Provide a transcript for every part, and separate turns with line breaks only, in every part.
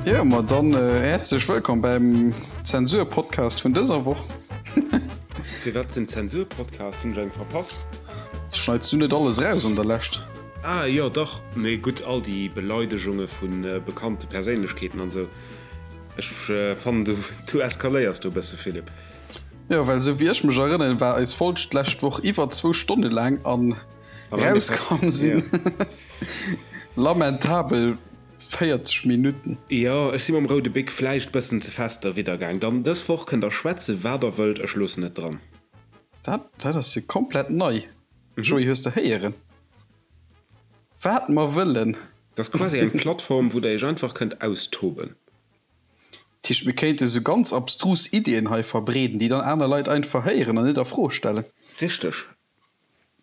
Jo, ma dann häerzlech wëllkomm beim Zensur-Podcast vun dëser Woch.
Firwat den Zensur-Podcast? Hunn ech eng verpasst?
Schneits du net alles raus an der Lescht?
Ah jo, dach, mee gutt, all déi Beleidegunge vu bekannte Perséinlechkeeten an esou. Ech fannen du du eskaléiers do e bësse, Philippe.
Jo, well esou wéi ech mech erënneren, war eis Folg d'lescht Woch iwwer zwou Stonne laang an rauskomm sinn lamentabel 40 Minutten.
Jo, ech si mam roude Bic vläicht bëssen ze fest derwidder gaang. Dann dës Woch kënnt der schwätze wat der wëllt, ech loossen et dran.
Dat dat ass jo komplett nei, Joé, hues de héieren? Wat mer wëllen.
Dat ass quasi eng Plattform, wou der iech einfach kënnt austoben.
Dat heescht, mir kéinte sou ganz abstrus Iddien hei verbreeden, déi dann aner Leit einfach héieren an net a Fro stellen.
Richteg.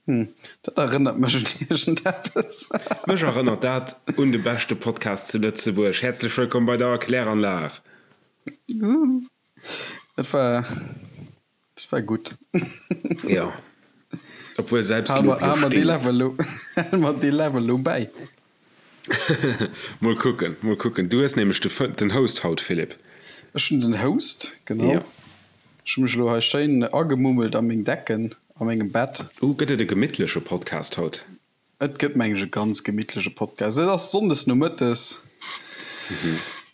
Hm, dat erënnert mech un iergendeppes.
Mech erënnert dat un de beschte Podcast zu Lëtzebuerg. Häerzlech wëllkomm bei der Erkläranlag!
Dat war, dat war gutt.
Jo, obwuel Selbstlob jo
stinkt. Hale mer dee Level elo bäi.
Mol kucken, mol kucken. Du hues nämlech den Host haut, Philippe.
Ech hunn den Host, genau. Ech hu mech elo hei schéin agemummelt a meng Decken a mengem Bett.
Uh, gëtt et e gemittleche Podcast haut?
Et gëtt, meng ech, e ganz gemittleche Podcast. Et ass sonndes nomëttes.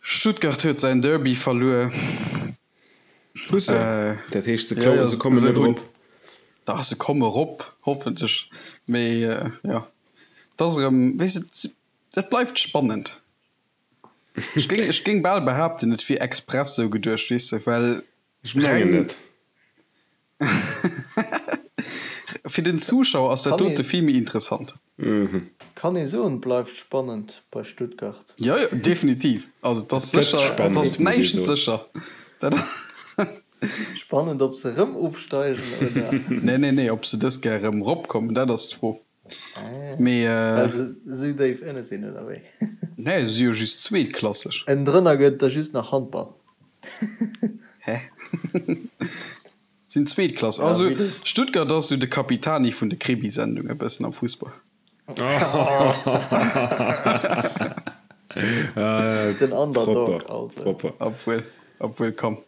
Stuttgart huet säin Derby verluer.
Hu se? Dat heescht, se klammen, se kommen net erop?
Dach, se komme erop, hoffentlech. Mee jo, et ass erëm, weess de, et bleift spannend. Ech géing, ech géing bal behaapten, et wier express sou geduecht, weess de, well
Ech mengen net.
Fir den Zuschauer ass dat dote vill méi interessant.
Kann ee soen, bleift spannend bei Stuttgart.
Jo, jo, definitiv. Also et ass sécher, et ass näischt sécher.
Dat. Spannend, ob se erëm ofsteigen oder.
Nee, nee, nee, ob se dës Kéier erëm eropkommen, dat ass d'Fro.
Mee. Well se esou déif ënne sinn, oder wéi?
Nee, se si jo just zweetklasseg.
Ënnendrënner gëtt da just nach Handball.
Hä? Sinn zweetklasseg. Also Stuttgart ass esou de Capitani vun de Krimisendungen e bëssen am Fussball.
Den Underdog also.
Propper. Obwuel, obwuel, komm.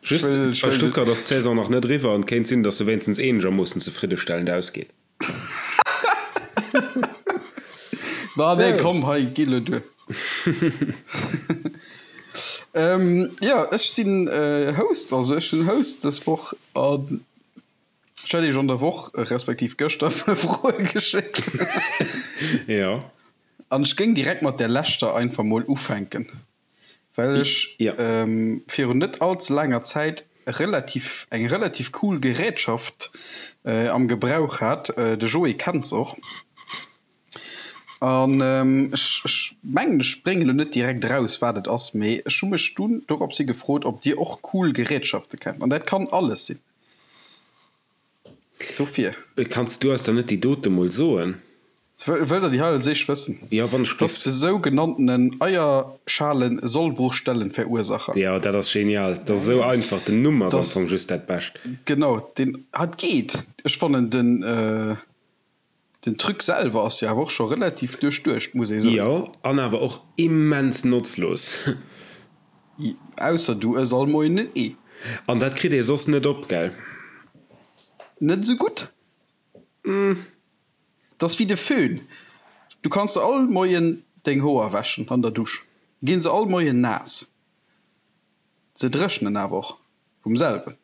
Just, bei Stuttgart ass d'Saison nach net eriwwer an et kéint sinn, datt se wéinstens eenegermoossen zefriddestellend ausgeet.
Ma nee, komm, hei, gi lo duer. Ähm, jo, ech sinn Host, also ech sinn Host dës Woch an ech hat iech an der Woch, respektiv gëschter, e puer Froe geschéckt.
Jo.
An ech géing direkt mat där leschter einfach mol ufänken. Well ech virun net all ze laanger Zäit relativ eng relativ cool Gerätschaft am Gebrauch hat. De Joé kennt se och. An ech ech mengen ech bréngen elo net direkt eraus wat et ass, mee ech hu mech dunn dorops hi gefrot ob dir och cool Gerätschafte kennt. An dat kann alles sinn. Dofir.
Kanns du eis dann net déi dote mol soen?
Wëllt der déi hei als éischt wëssen?
Jo, wann ech
Dat ass de sougenanntenen Eierschalen-Sollbruchstellenverursacher.
Jo, dat ass genial. Dat ass esou einfach. Den Numm ass am Fong just dat Bescht.
Genau, deen hat geet. Ech fannen den den Truc selwer ass jo awer och scho relativ duerchduecht, muss ee soen.
Jo, an awer och immens notzlos.
Ausser du ëss all Moien en Ee.
An dat kritt ee soss net op, gell?
Net esou gutt. Dat ass wéi de Föhn. Du kanns der all Moien deng Hoer wäschen an der Dusch, ginn se all Moien naass. Se dréchnen awer och vum selwen.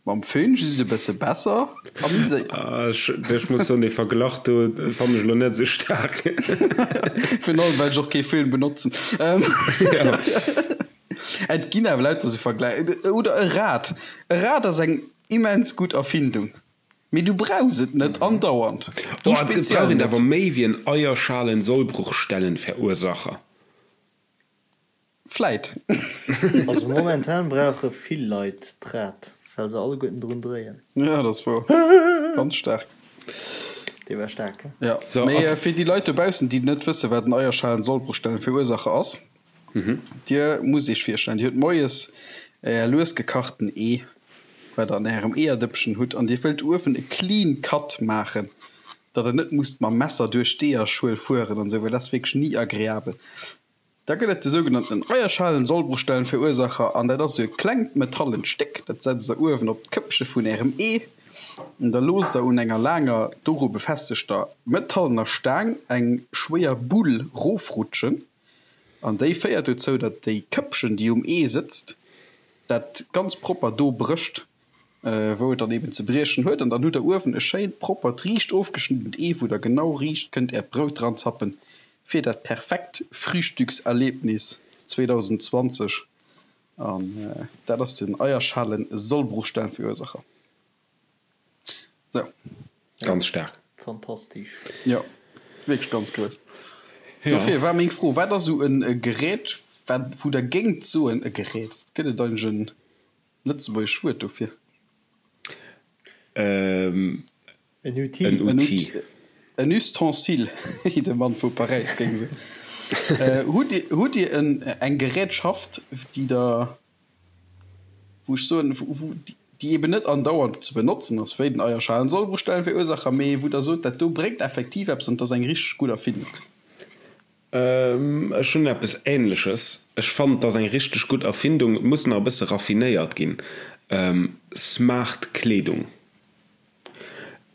Mam Föhn just e bësse besser a méi séier.
Ech muss soen, dee Verglach do fannen ech elo net esou staark.
Virun allem well ech och kee Föhn benotzen. Et ginn awer lauter esou Vergläich. Oder e Rad. E Rad ass eng immens gutt Erfindung, mee du brauchs et net andauernd.
Du speziell net. Et brauch een awer méi wéi en Eierschalen-Sollbruchstellenverursacher.
Vläit.
Also momentan brauche vill Leit d'Rad, well se alleguerten drun dréien.
Ja, dat ass wouer. Ganz staark.
Dee war staark,
he? Ja, mee fir déi Leit dobaussen, déi net wëssen, wat en Eierschalen-Sollbruchstellenverursacher ass, Dir musst Iech virstellen, Dir hutt moies Är lues gekachten Ee, wat Der an Ärem Eeërdëppchen hutt, an Dir wëllt uewen e clean cut maachen, datt Der net musst mam Messer duerch d'Eeërschuel fueren an esou, well dat ass wierklech ni agreabel. Da gëtt et de sougenannten Eierschalen-Sollbruchstellenverursacher an dat ass esou e klengt metallent Stéck, dat setzt der uewen op d'Këppche vun ärem Ee an da loosst der un enger laanger, doru befestegter metallener Staang eng schwéier Bull rofrutschen an déi féiert dozou, datt déi Këppchen, déi um Ee sëtzt, dat ganz propper do brécht. Wou et dann eben ze briechen huet, an dann hutt der uewen e schéint proppert riicht ofgeschniddent Ee wou der genau riicht kënnt äert Brout dran zappen fir dat perfekt Frühstückserlebnis 2020 an dat ass den Eierschalen Sollbruchstellenverursacher. Sou.
Ganz staark.
Fantastisch.
Jo, wierklech ganz grouss. Dofir war meng Fro, wat ass esou e Gerät wat wou der géingt soen, e Gerät, gëtt et eigentlech en Lëtzebuergescht Wuert dofir?
En Outil.
En Outil.
En Ustensile, wéi de Mann vu Paräis géing soen. Hutt Dir, hutt Dir en, eng Gerätschaft, déi Der, wou ech soen, wou, déi eben net andauernd ze benotzen ass, wéi den Eierschalen-Sollbruchstellenverursacher, mee wou Der sot, dat do bréngt effektiv eppes an et ass eng richteg gutt Erfindung?
Ech hunn eppes Ähnleches. Ech fannen, et ass eng richteg gutt Erfindung. Et muss nach e bësse raffinéiert ginn. Smart Kleedung.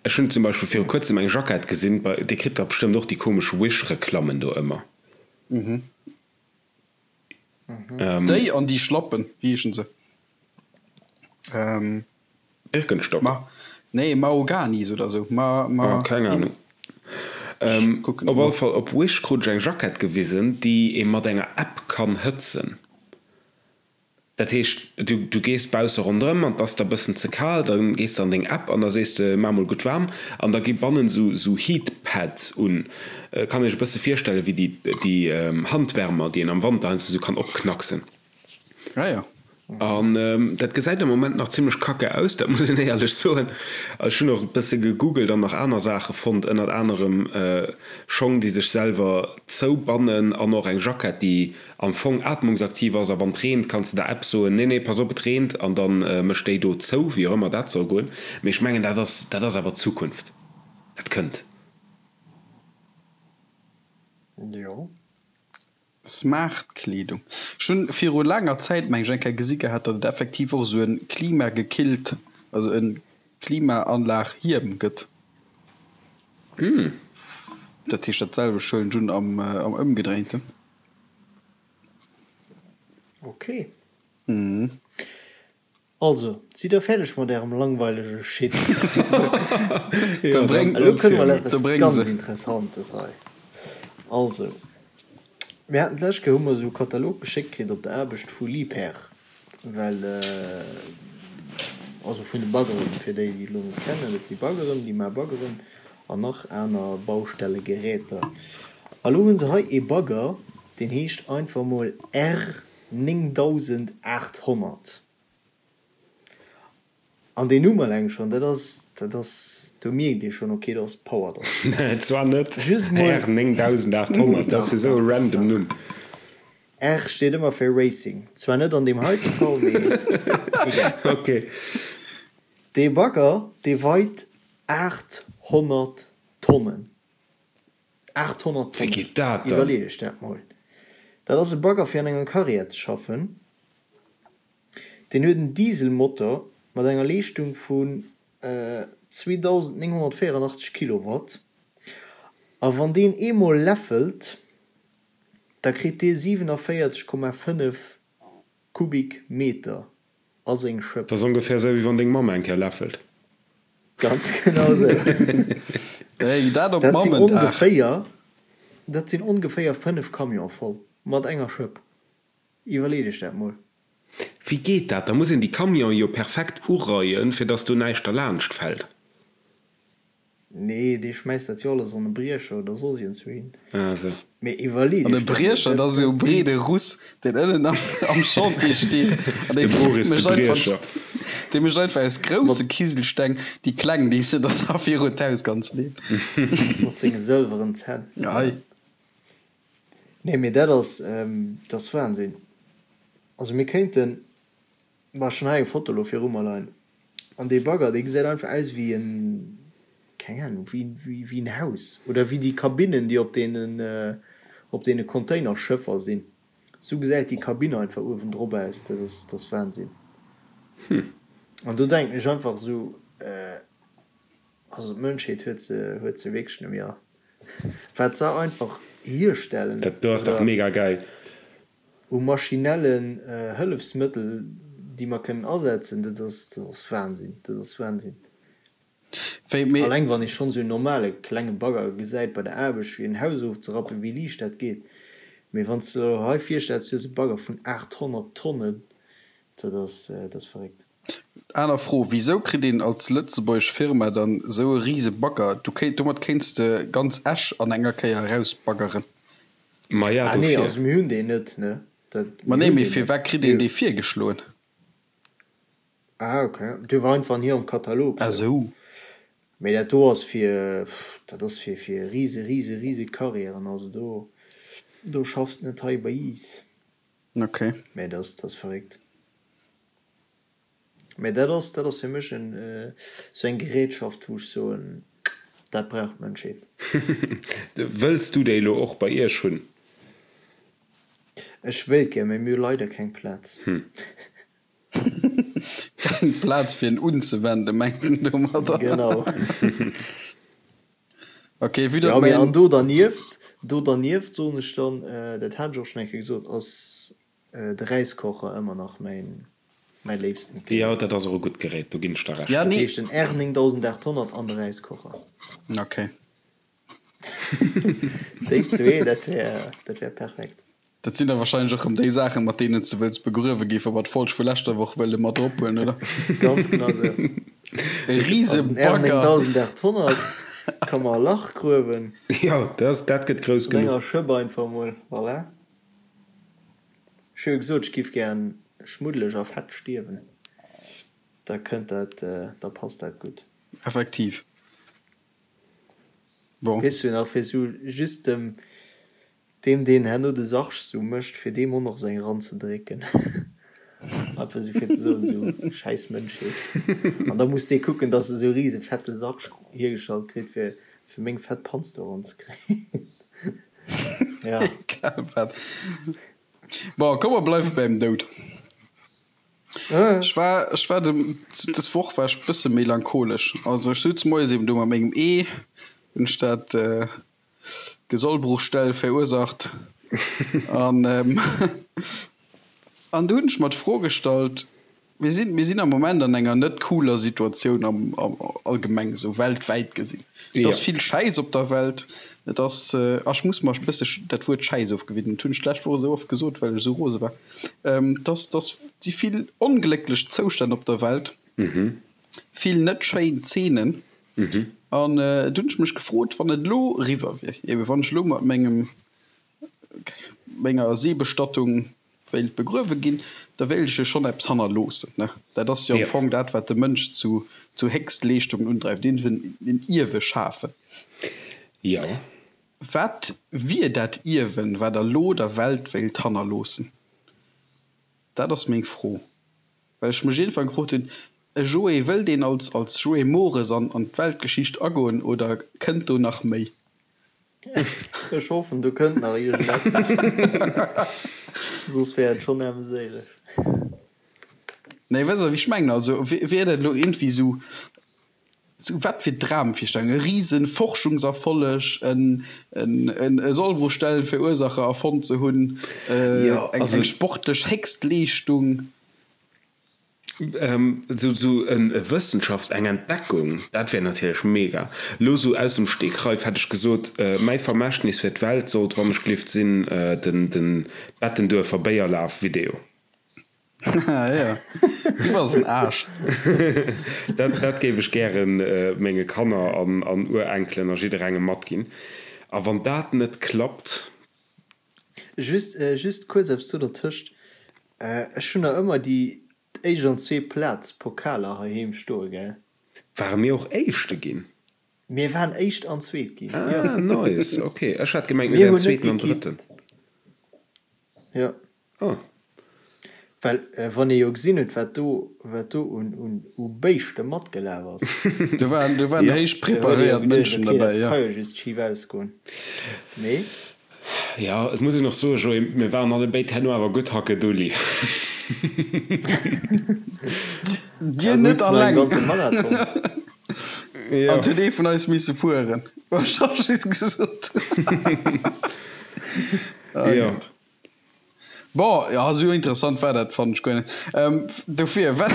Ech hunn zum Beispill viru kuerzem eng Jackett gesinn, bei, Dir kritt dach bestëmmt och déi komesch Wish-Reklammen do ëmmer.
Déi an déi Schlappen, wéi heeschen se?
Birkenstock?
Ma, nee, Mahoganis oder sou. Ma, ma.
Oh, keng Ahnung.
Ech kucken
Op
et
alle
no.
Fall, op Wish krut ech eng Jackett gewisen, déi ee mat enger App kann hëtzen. Dat heescht, du, du gees bausse ronderëm an 't ass der bëssen ze kal, da gees de an deng App an da sees de, maach mol gutt waarm an da gi bannen sou, sou Heat Pads un. Kann iech e bësse virstelle wéi déi, déi Handwärmer, déi een am Wanter heiansdo sou kann opknacksen.
Ah jo.
An dat gesäit am Moment nach zimlech kacke aus, dat muss een éierlech soen. Ech hunn och e bësse gegoogelt an nach aner Saache fonnt, ënnert anerem Schong, déi sech selwer zoubannen an och eng Jackett, déi am Fong atmungsaktiv ass a wann et reent, kanns de der App soen, nee, nee, pass op, et reent an da mécht déi do zou, wéi och ëmmer dat soll goen. Mee ech mengen, dat ass, dat ass awer d'Zukunft, dat kënnt.
Jo.
Smart Kleedung. Ech hunn viru laanger Zäit meng ech eng Kéier gesi gehat, datt et effektiv och esou en klimagekillt, also en Klimaanlag Hiem gëtt. Dat heescht dat selwecht huelen ech un am am ëmgedréinten.
Ok. Also, sidd der fäerdeg mat ärem langweilege Shit?
Da bréng,
Elo kënne mer eppes
da bréng
ganz
se.
Interessantes hei. Also, mir haten d'lescht Kéier hu mer esou e Katalog geschéckt kritt op der Aarbecht vu Liebherr, well, also vun de Baggeren, fir déi, déi et elo net kennen, dat si Baggeren, déi maache Baggeren an nach aner Baustellegeräter. A lo hu se hei ee Bagger, deen heescht einfach mol R. 9800. An deen Numm eleng schonn, dat ass, dat ass, do mierkt ee schonn, ok, do ass Power dran.
Zwar net
Just mol.
R 9800, dat ass jo esou e random Numm.
R steet ëmmer fir Racing. Zwar net an deem heite Fall, mee egal.
Ok.
Dee Bagger, dee weit 800 Tonnen. 800
Wéi
Tonnen!
geet dat dann?
Iwwerleet iech dat mol. Dat ass e Bagger fir an enger Carrière ze schaffen. Deen huet en Dieselmotor mat enger Leeschtung vun 2984 Kilowatt. A wann deen eemol läffelt, da kritt dee 47,5 Kubikmeter a seng Schëpp.
Dat ass ongeféier esou, wéi wann deng Mamm eng Kéier läffelt.
Ganz genau esou.
Hey, dat op
Dat sinn
Mammendag.
ongeféier, dat sinn ongeféier 5 Camione voll mat enger Schëpp. Iwwerleet iech dat mol.
Wéi geet dat? Da muss een déi Camionen jo perfekt ureien, fir dass do näischt derlaanscht fält.
Nee, dee schmäisst dat jo alles an e Briecher oder soss iergendswouhin.
Ah sou.
Mee iwwerlee
An e
dech dat mol,
Briecher, dat
dat
ass esou e
dat sinn.
breede Russ, deen ënnen am, am Chantier steet an
De
dee
Boris de
mécht einfach,
Briecher.
dee mécht einfach aus grousse
Mat.
Kiselsteng déi kleng, déi s de dann da virun d'Haus kanns leeën.
Mat senge sëlweren Zänn.
Ei.
Nee, mee dat ass, dat ass Wahnsinn. Also mir kéinten. Ma ech hunn hei eng Foto lo viru mer leien an dee Bagger dee gesäit einfach aus wéi en, keng Ahnung, wéi wéi en Haus oder wéi déi Kabinnen déi op deenen op deene Containerschëffer sinn. Sou gesäit déi Kabinn einfach uewendrop aus, dat ass, dat ass Wahnsinn. An do denken ech einfach sou, also d'Mënschheet huet se, huet se wierklech net méi all. Wat se einfach hierstellen.
Dat do ass dach mega geil.
U maschinellen Hëllefsmëttel, déi mer kënnen asetzen, dat ass, dat ass Wahnsinn, dat ass Wahnsinn. Alleng wann ee schonn esou en normale klenge Bagger gesäit bei der Aarbecht fir en Haus ofzerappen, wéi liicht dat geet. Mee wann s de der elo hei virstells, du hues e Bagger vun 800 Tonnen, dat ass, dat ass verréckt.
Aner Fro, Wisou kritt een als lëtzebuergesch Firma dann esou e rise Bagger? Du kéint, domat kéints de ganz Esch an enger Kéier erausbaggeren.
Maja,
Ah nee,
dofir.
also mir hunn deen net, ne? Dat,
Ma
mir
nee,
hunn
mee
deen net.
firwat kritt een
Mir.
dee virgeschloen?
Ah ok, dee war einfach an hirem Katalog
Ah
sou.
sou.
Mee dat do ass fir, dat ass fir fir rise rise rise Carrièren, also do do schaffs de net hei bei iis.
Ok.
Mee dat ass dat ass verréckt. Mee dat ass dat ass fir mech en sou eng Gerätschaft wou ech soen, dat brauch d'Mënschheet.
Wëlls du déi elo och bei iech hunn?
Ech wéilt gär, mee mir hu leider keng Plaz.
Keng Plaz fir en unzewenden, mengt en domadder.
Genau.
Ok, vue datt
Jo, mee
mäin.
an do dernieft, do dernieft soen ech dann, dat hat ech och schonn eng Kéier gesot, ass de Räiskocher ëmmer nach mäin, mäi léifsten
Jo,
Gerät.
dat ass och e gutt Gerät, do ginn ech der Recht.
Ja,
Dat
nee.
heescht den R 9800 an de Räiskocher.
Ok.
Déi zwee, dat wär, dat wär perfekt.
Dat sinn da wahrscheinlech och rëm déi Saachen, mat deenen s de wëlls begruewe gi, wa mer d'Folg vu leschter Woch wëlle mat drop huelen, oder?
Ganz genau sou.
E
Also den R
Risebagger.
9800 ka mer e Lach gruewen.
Jo, dat, dat gëtt grouss
Mat
genuch.
enger Schëpp einfach mol, voilà. Ech hu jo gesot, ech giff gären schmuddeleg a fett stierwen. Da kënnt dat, da passt dat gutt.
Effektiv. Bon.
Weess du nach, fir sou just dem, deem deen herno de Sarg sou mécht, fir deem och nach sou eng eranzedrécken. Einfach sou fir ze soen, sou schäiss Mënschheet. An da muss dee kucken, dass e sou e rise fette Sarg hiergestallt kritt, fir, fir meng fett Panz do eranzekréien. Ja.
Egal wat. Bon, komm mer bleiwe beim Doud. Ech war, ech war de, des Woch war ech bësse melancholesch. Also ech sutz moies eben do mat mengem Ee, hunn ech dat Gesollbruchstell verursacht an an du hunn ech mer d'Fro gestallt, Mir sinn, mir sinn am Moment an enger net cooler Situatioun am, am allgemeng esou weltwäit gesinn. Et ass vill Schäiss op der Welt. Et ass, a ech muss mer e bësse dat Wuert Schäiss ofgewinnen, dat hunn ech d'lescht Woch esou oft gesot, well ech esou rose war. Dass dass si vill onglécklech Zoustänn op der Welt, vill net schéin Zeenen. An du hunn ech mech gefrot, wann et elo eriwwer wier, ebe wann ech elo mat mengem menger Seebestattung wéilt begruewe ginn, da wéilt ech jo schonn eppes hannerloossen, ne? Dat ass jo am Fong dat, wat de Mënsch zu zu Héchstleeschtungen undreift, iergendwéi en Ierwe schafen.
Jo.
Wat wier dat Ierwen, wat Der elo der Welt wéilt hannerloossen? Dat ass meng Fro, well ech mech iergendwann gefrot hunn, E Joé, wëllt een als als Joé Mores an an d'Weltgeschicht agoen oder kënnt do nach méi?
Ech hoffen, do kënnt nach iergendeppes, soss wär et schonn aarmséileg.
Nee, wësst Der, wéi ech mengen? Also wier dat elo iergendwéi esou Sou wat fir Dramvirstellung, e riesen Forschungserfolleg, en en Sollbruchstellenverursacher erfonnt ze hunn, eng sportlech Héchstleeschtung.
Sou sou e Wëssenschaft, eng Entdeckung, dat wär natierlech mega. Lo sou aus dem Stegreif hätt ech gesot, mäi Vermächtnis fir d'Welt sollt wann ech gelift sinn den den Bettenduerfer Béierlaf Video.
Ja, du bass en Aarsch.
Dat, dat géif ech gären menge Kanner an, an Urenkelen a jidderengem matginn. A wann dat net klappt.
Just, just kuerz eppes do dertëscht, Ech hunn nach ëmmer déi éischt an zweet Plaz Pokaler heiheem stoe, gell?
Ware mir och Éischte ginn?
Mir waren Éischt an Zweet ginn,
jo. Ah, nice, ok. Ech hat gemengt, mir
Mir
wären
hunn net
Zweeten an Drëtten.
gekitzt. Jo.
Oh.
Well wann ee jo gesinn huet, wat do, wat do un, un, u Béischte matgelaf ass.
Do waren, do waren
Ja.
héich
Do huet ee jo
preparéiert
geduecht,
Mënschen
okay,
derbäi,
dat
jo.
ka jo just schif ausgoen. Mee.
Jo, et muss een och soen, Joé, mir waren allebéid herno awer gutt hackedulli.
Dir net alleng. An et huet ee vun eis misse fueren. Ech hu just gesot.
Jo.
Bon, jo, esou interessant war dat, fannen ech guer net. Dofir, wat.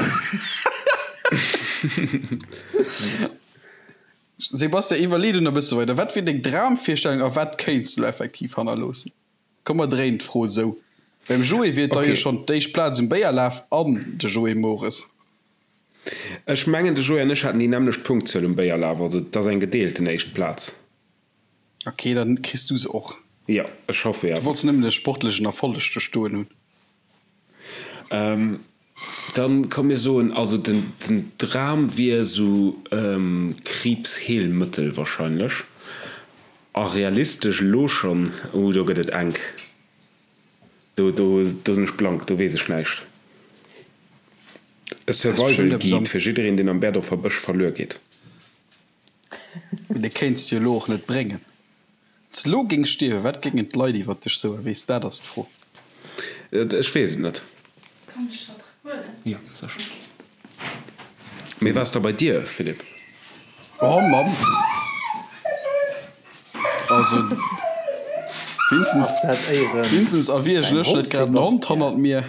Sebastian, iwwerlee du nach e bësse weider. Wat wier deng Dramvirstellung a wat kéints du elo effektiv hannerloossen? Komm mer dréinen d'Fro esou. Beim Joé wier et da jo schonn d'éischt Plaz um Béierlaf an de Joé Mores.
Ech mengen de Joé an ech haten déi nämmlecht Punktzuel um Béierlaf, also et ass eng gedeelten éischt Plaz.
Ok, dann kriss du se och.
Jo, ech hoffe
jo. Du wollts nëmmen e sportlechen Erfolleg do stoen hunn.
Dann komm mir soen, also den den Dram wier esou Kriibsheelmëttel wahrscheinlech. A realistesch elo schonn, uh do gëtt et enk, do do do sinn ech blank, do weess ech näischt. E Survival Guide fir jiddereen deen am Berdorfer Bësch verluer geet.
Mee dee kéints de jo elo och net bréngen. Wann s de elo géings stierwen, wat géingen d'Leit iwwer dech soen? Weess, dat ass d'Fro.
Ech weess et net.
Kann ech dat huelen?
Jo, sécher. Mee wat ass da bei dir, Philippe?
Oh Mamm! Also, Vinzenz,
Ass dat éieren
Vinzenz, erwiergen
däin
ech net
Hond,
grad en Hond
Sebastian?
hannert mir?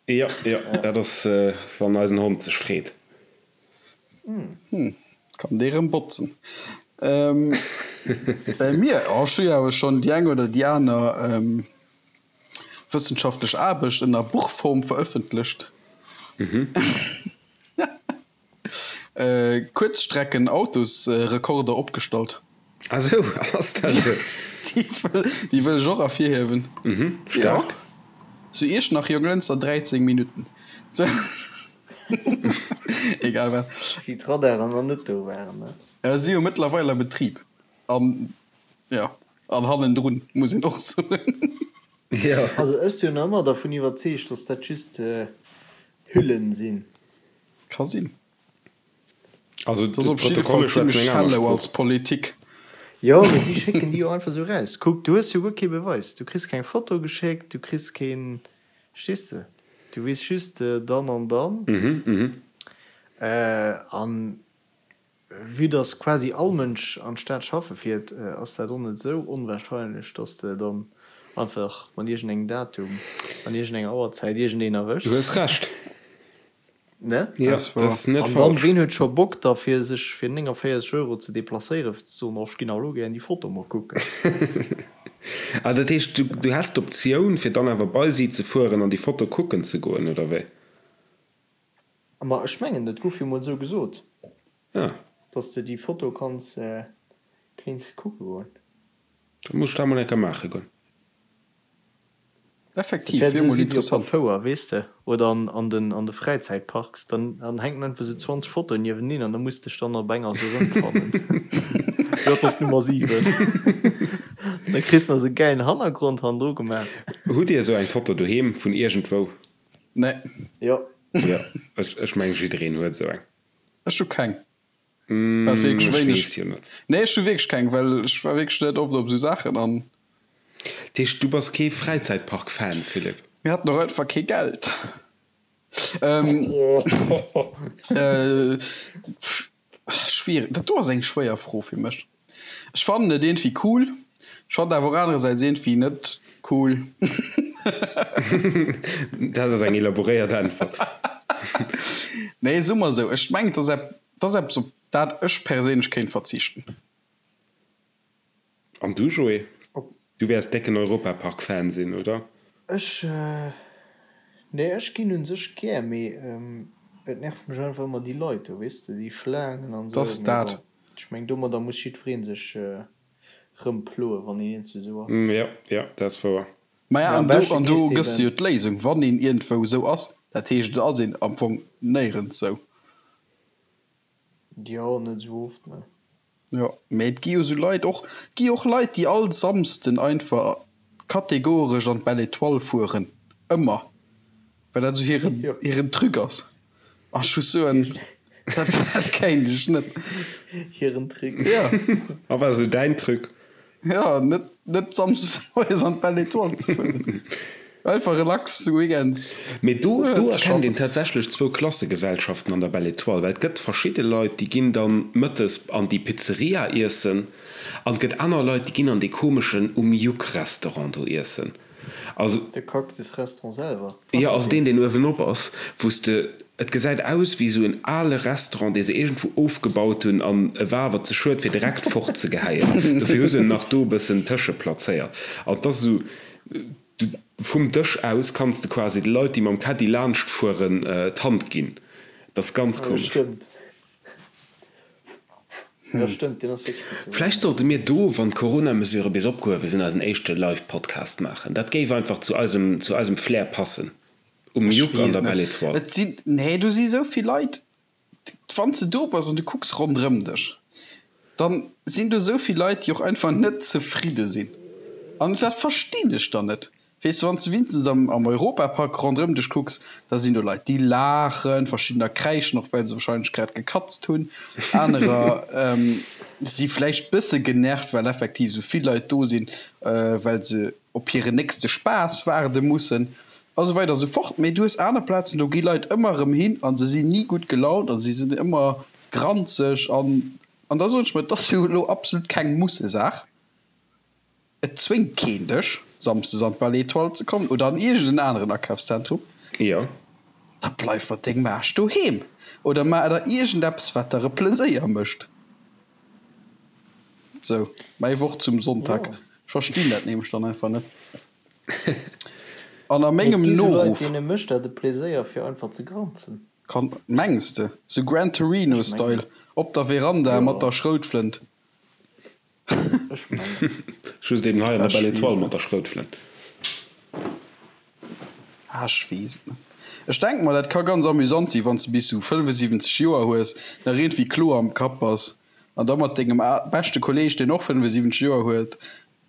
Jo, jo, dat ass, wann eisen Hond sech freet.
Hm, kann dee rëm botzen. Bei mir, oh, ech hu jo awer schonn déi eng oder déi aner wëssenschaftlech Aarbecht ënner Buchform verëffentlecht. Kuerzstrecken-Autosrekorder opgestallt.
Ah sou, ass dat sou?
Déi wëll ech och ervirhiewen.
Staark.
Zu Iechternach, Jonglënster, 13 Minutten. Egal wat.
Wéi d'Radaren nach net do waren, ne?
Ja, si jo mëttlerweil a Betrib. An, ja, an hannendrun, muss een och soen.
Jo.
Also ech sinn jo nach ëmmer dervun iwwerzeegt, dass dat just Hüllen sinn.
Ka sinn.
Also
Dat ass op jidde Fall
d'Protokolle schwätzen
zimlech
eng aner
shallow
Sprooch.
als Politik.
Jo, mee si schécken déi jo einfach esou raus. Kuck, du hues jo guer kee Beweis. Du kriss keng Foto geschéckt, du kriss keen, verstees de? Du weess just dann an dann. An vue dass quasi all Mënsch an d'Stad schaffe fiert, ass dat och net esou onwahrscheinlech, dass de dann einfach mat iergendengem Datum an iergendenger Auerzäit iergendeen
Du
erwëschs.
hues Recht.
Ne?
Jo, dat ass net
An dann,
falsch.
ween huet scho Bock da fir sech fir 49 Euro ze deplacéieren, fir ze soen, oh ech ginn awer elo gären déi Foto mol kucken.
Ah, dat heescht, du, du häss d'Optioun, fir dann awer bei si ze fueren an déi Foto kucken ze goen, oder wéi?
Ma ech mengen, dat gouf jo mol esou gesot,
Ah.
dass de déi Foto kanns, kéints kucke goen.
Da muss ech dat mol eng Kéier maache goen.
Effektiv,
Dat wäert
wier
esou
mol
si wéi op der
interessant.
Fouer, weess de, oder an an den an de Fräizäitparks, dann dann hänken einfach esou 20 Fotoen nieweneen an da muss dech dann op enger esou erëmfannen. Jo, dat ass d'Nummer 7. An da kriss de nach esou e gäilen Hannergrond hannendru gemaach.
Hutt Dir esou eng Foto doheem vun iergendwou?
Nee.
Jo.
Jo, ech ech mengen jiddereen huet esou eng.
Ech hu keng. Well wierklech
Ech
wéineg.
weess jo net.
Nee, ech hu wierklech keng, well ech war wierklech net oft op esou Saachen an.
Dat heescht, du bass kee Fräizäitpark-Fan, Philippe?
Mir haten och einfach kee Geld. Schwiereg, dat do ass eng schwéier Fro fir mech. Ech fannen et iergendwéi cool, ech fannen et awer och anerersäits iergendwéi net cool.
Dat ass eng elaboréiert Äntwert.
Nee, soe mer esou, ech mengen, et ass ep, et ass eppes, op dat ech perséinlech kéint verzichten.
An du, Joé? Du wäers décken Europapark-Fan sinn, oder?
Ech, nee, ech ginn un sech gär, mee et nervt mech einfach ëmmer déi Leit do, weess de, déi Schlaangen an
Dass
esou. Mee
dat.
bon, ech meng domadder muss jiddweree sech rëmploen, wann een eenzel esou ass.
Jo, jo, dat ass wouer.
Maja,
Mee am
an do,
beschte
an do
gees de
gëss de jo
eben.
d'Léisung, wann een iergendwou esou ass, dat heescht, et ass een am Fong néierens esou.
Jo, net esou oft, ne.
Jo, mee et gi jo sou Leit och, et gi och Leit, déi all Samsden einfach kategoresch an d'Belle Etoile fueren, ëmmer, well dat sou hiren, hiren Truc ass. An ech muss soen, dat dat kéint ech net.
Hiren Truc.
Jo.
A wat ass esou däin Truc?
Jo, net, net samsdes moies an d'Belle Étoile ze fueren. Einfach relax weekends
Mee do, do
ze
erkennt
schaffen.
een tatsächlech zwou Klassegesellschaften an der Belle Étoile, well et gëtt verschidde Leit, déi ginn dann mëttes an déi Pizzeria iessen an et gëtt aner Leit, déi ginn an dee komeschen Um Juck Restaurant do iessen. Also.
De Cactus Restaurant selwer, ass
Jo,
dat
also deen,
deen?
deen uewenop ass, wou s de, et gesäit aus wéi esou en ale Restaurant, dee se iergendwou ofgebaut hunn an e war awer ze schued, fir direkt fortzegeheien. Dofir hu se en nach do e bëssen tëscheplazéiert. An et ass esou, du, vum Dësch aus kanns de quasi de Leit, déi mam Caddy laanschtfueren, d'Hand ginn. Et ass ganz
Jo,
komesch.
stëmmt. Jo, stëmmt, deen ass wierklech bësse
Vläicht sollte mir do, wann d'Corona-Mesurë bis opgehuewe sinn, eisen éischte Live-Podcast maachen. Dat géif einfach zu eisem, zu eisem Flair passen. Um
Ech
Juck an
weess
der
net.
Belle Étoile.
Et sinn, nee, do si sou vill Leit. Wann s de do bass an du kucks ronderëm dech, dann sinn do sou vill Leit, déi och einfach net zefridde sinn. An dat verstinn ech dann net. Weess de, wann s de wéinstens am am Europapark ronderëm dech kucks, da sinn do Leit, déi laachen, verschiddener kräischen och, well se wahrscheinlech grad gekatzt hunn, anerer si vläicht bësse genervt, well effektiv esou vill Leit do sinn, well se op hiren nächste Spaass waarde mussen a sou weider a sou fort. Mee du hues aner Plazen, do gi Leit ëmmer erëm hin a se sinn ni gutt gelaunt a si sinn ëmmer granzeg an an da soen ech mer, et ass jo elo absolut keng Mussesaach. Et zwéngt keen dech, samsdes an d'Belle Etoile ze kommen oder an iergend en aneren Akafszentrum.
Jo.
Da bleif mat dengem Aarsch doheem oder maach der iergend eppes, wat der e Pleséier mécht. Sou, mäi Wort zum Sonntag.
Jo.
Ech verstinn dat nämlech dann einfach net. An a
Mee et
mengem
gi sou Leit,
Noruff.
deene mécht dat e Pleséier, fir einfach ze granzen.
Kann, mengs de? Sou Gran
Ech mengen.
Torino-Style, op der Veranda mat
Jo.
der Schroutflënt.
Ech mengen.
Just eben hei an der
Ech
Belle
weess
Etoile
et
mat
net.
der Schroutflënt.
Ah, ech weess et net. Ech denken mer, dat ka ganz amüsant sinn, wann s de bis sou 75 Joer hues, nach iergendwéi kloer am Kapp bass an da mat dengem beschte Kolleeg, deen och 75 Joer huet,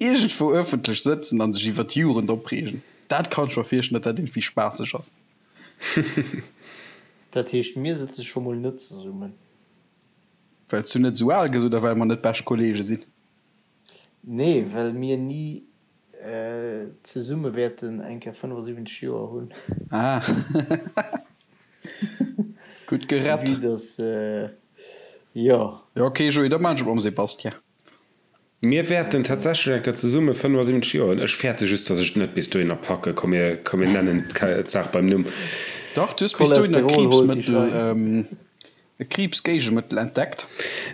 iergendwou ëffentlech sëtzen an sech iwwer d'Jugend opreegen. Dat kann ech mer virstellen, datt dat iergendwéi spaasseg ass.
Dat heescht, mir sëtze scho mol net zesummen.
Well s du net esou al gëss oder well mer net bescht Kollege sinn?
Nee, well mir ni zesumme wäerten eng Kéier 75 Joer hunn.
Ah. Gutt gerett.
Vue dass, jo.
Jo, ok Joé, da maan ech et mam Sébastien.
Mir wäerten tatsächlech eng Kéier zesumme 75 Joer hunn. Ech fäerte just, dass ech et net bis dohinner packen. Komm, mir, komm, mir nennen d'Saach beim Numm.
Dach, du hues bis dohinner
Cholesterol holt déi
Kriibsmëttel,
Schwein.
e Kriibsgéigemëttel entdeckt.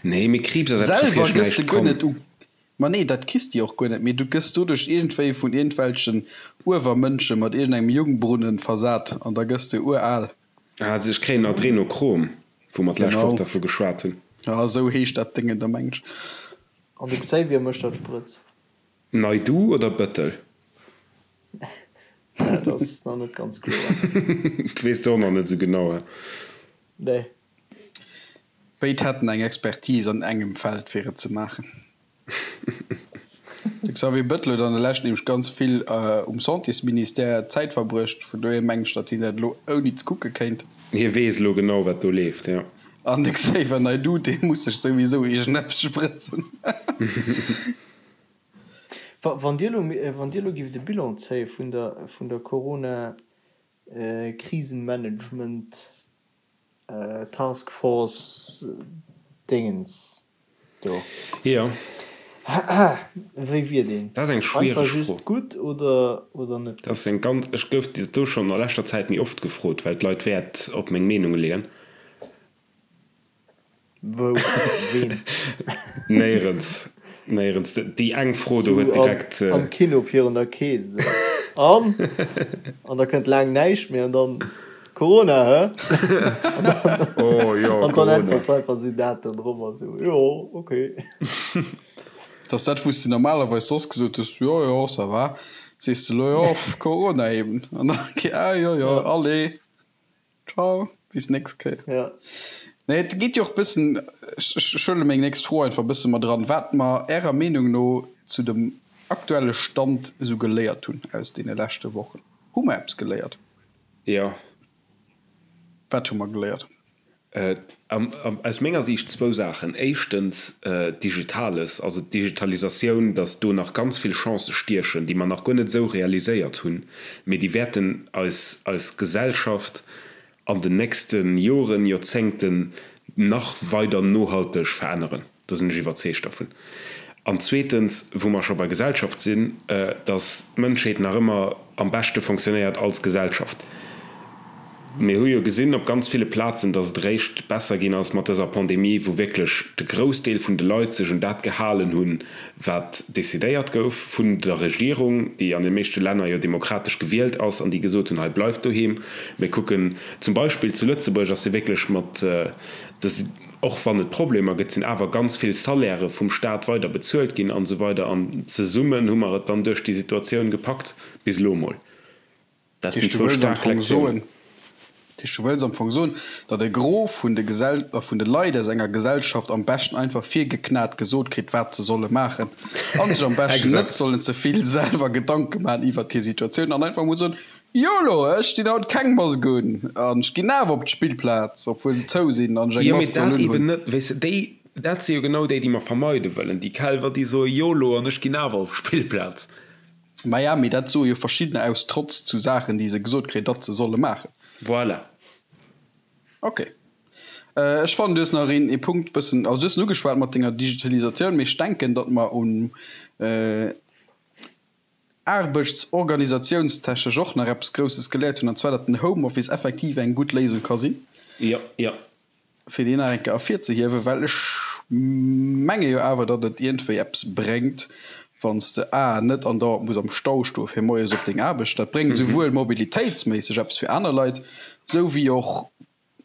Nee, mee Kriibs ass eppes, woufir
Selwer
ech
gëss de
näischt
guer
kann.
net u. Ma nee, dat kriss de jo och guer net, mee du gëss doduerch iergendwéi vun iergendwelchen Uewermënsche mat iergendengem Jungbrunnen versat an da gëss de ural.
Ah, also ech kréien Adrenochrom, wou mer d'lescht Woch
Genau.
dervu geschwat hunn.
Ja, esou heescht dat Déngen da, mengen ech.
An de Xavier mécht dat Sprëtz.
Naidu oder Bëttel?
Dat ass nach net ganz kloer.
Dat weess de och nach net esou genau, he?
Nee.
Béid hätten eng Expertise an engem Feld fir et ze maachen. De Xavier Bettel huet an der Lescht nämlech ganz vill um Santésministère Zäit verbruecht, vun dohier mengen ech, datt hien dat elo ouni ze kucke kéint.
Hie weess elo genau, wat do leeft, jo.
An de Xavier Naidoo, dee muss sech souwisou iergendeppes sprëtzen.
Wann Dir elo, wann Dir elo gift e Bilan zéie vun der, vun der Corona-Krisenmanagement Task Force Dingens do.
Jo.
Wéi wier deen?
Dat ass eng schwiereg
Einfach
Fro.
just gutt oder oder net
Dat
gutt?
ass eng ganz, ech gouf dat do schonn a leschter Zäit méi oft gefrot, well d'Leit Wäert op meng Meenung leeën.
Wou? Ween?
Néierens, néierens. Déi eng Fro do
Sou
huet direkt.
am Kino virun der Kees esou. An? An da kënnt laang näischt méi an dann, Corona, hä? An dann,
Oh jo,
an dann
Corona.
äntwers du einfach sou dat do drop a sou, jo, okay.
Dat ass dat, wou s de normalerweis soss gesot hues, jo, jo, ça va, sees de elo, jo, Corona eben. An dann, ah jo, jo, allez. Ciao, bis nächst Kéier.
Ja.
Nee, et geet jo och bëssen, ech ech huele meng nächst Fro einfach bësse mat eran, wat mer Ärer Meenung no zu dem aktuelle Stand esou geléiert hunn aus deene leschte Wochen. Hu mer eppes geléiert?
Jo.
Wat hu mer geléiert?
Aus menger Siicht zwou Saachen. Éischtens Digitales, also d'Digitalisatioun, datt do nach ganz vill Chancë stiechen, déi mer nach guer net esou realiséiert hunn, mee déi wäerten eis, eis Gesellschaft an den nächste Joren, Joerzéngten nach weider nohalteg veränneren. Do sinn ech iwwerzeegt dervun. An zweetens, wou mer scho bei Gesellschaft sinn, dass d'Mënschheet nach ëmmer am beschte fonctionnéiert als Gesellschaft. Mir hu jo gesinn op ganz ville Plazen, dass et eréischt besser ginn ass mat dëser Pandemie, wou wierklech de Groussdeel vun de Leit sech un dat gehalen hunn, wat decidéiert gouf vun der Regierung, déi an de meeschte Länner jo demokratesch gewielt ass an déi gesot hunn, hei bleift doheem. Mir kucken zum Beispill zu Lëtzebuerg ass jo wierklech mat, och wann et Problemer gëtt, sinn awer ganz vill Salairë vum Staat weider bezuelt ginn an esou weider an zesummen hu mer et dann duerch déi Situatioun gepackt, bis elo emol. Dat sinn zwou staark Lektiounen.
Dat heescht, du wëlls am Fong soen, datt e Gros vun de Gesell, vun de Leit aus enger Gesellschaft am beschten einfach virgeknat gesot kritt, wat se solle maachen a sech am beschten net sollen ze vill selwer Gedanke maachen iwwert hir Situatioun an einfach emol soen, Yolo, ech dinn haut keng Mask un an ech ginn awer op d'Spillplaz, obwuel se zou sinn an ech eng
Jo, mee Mask soll dat eben unhunn. net, weess de, déi, dat si jo genau déi, déi mer vermeide wëllen, déi Kelwer, déi soe Yolo an ech ginn awer op d'Spillplaz.
Maja, mee dat soe jo verschiddener aus Trotz zu Saachen, déi se gesot kréien, datt se solle maachen.
Voilà.
Ok. Ech fannen, du hues nach een ee Punkt bëssen, also du hues en ugeschwat mat denger Digitalisatioun, mee ech denken, datt mer un aarbechtsorganisatiounstechnesch och nach eppes Grousses geléiert hunn, an zwar datt den Homeoffice effektiv eng gutt Léisung ka sinn.
Jo, jo.
Fir déi nach eng Kéier ervirzehiewen, well ech menge jo awer, datt et iergendwéi eppes bréngt, wann s de a net andauernd muss am Stau stoe fir moies op deng Aarbecht. Dat bréngt esouwuel mobilitéitsméisseg eppes fir aner Leit, esou wéi och,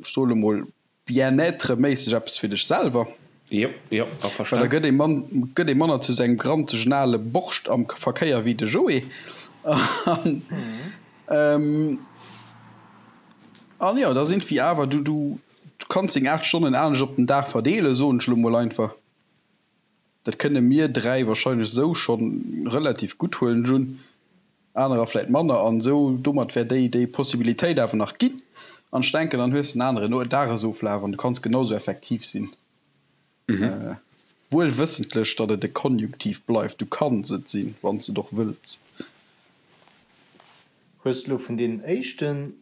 ech soe lo mol, bien-être-méisseg eppes fir dech selwer.
Jo, jo,
Well da gëtt ee man, gëtt ee manner zu sengem granzegen ale Borscht am Verkéier wéi de Joé. An, an jo, da sinn wéi awer, du, du, du kanns deng 8 Stonnen anescht op den Dag verdeelen, soen ech elo mol einfach. Dat kënne mir 3 wahrscheinlech esou schonn relativ gutt, huelen ech un. Anerer vläit manner. An esou domat wär déi, déi Possibilitéit awer nach ginn. An ech denken, dann hues de en aneren Dagesoflaf an du kanns genau esou effektiv sinn. Wuel wëssentlech, datt et e Konjunktiv bleift, du kanns et sinn, wann s de et och wëlls.
Hues de elo vun deenen éischten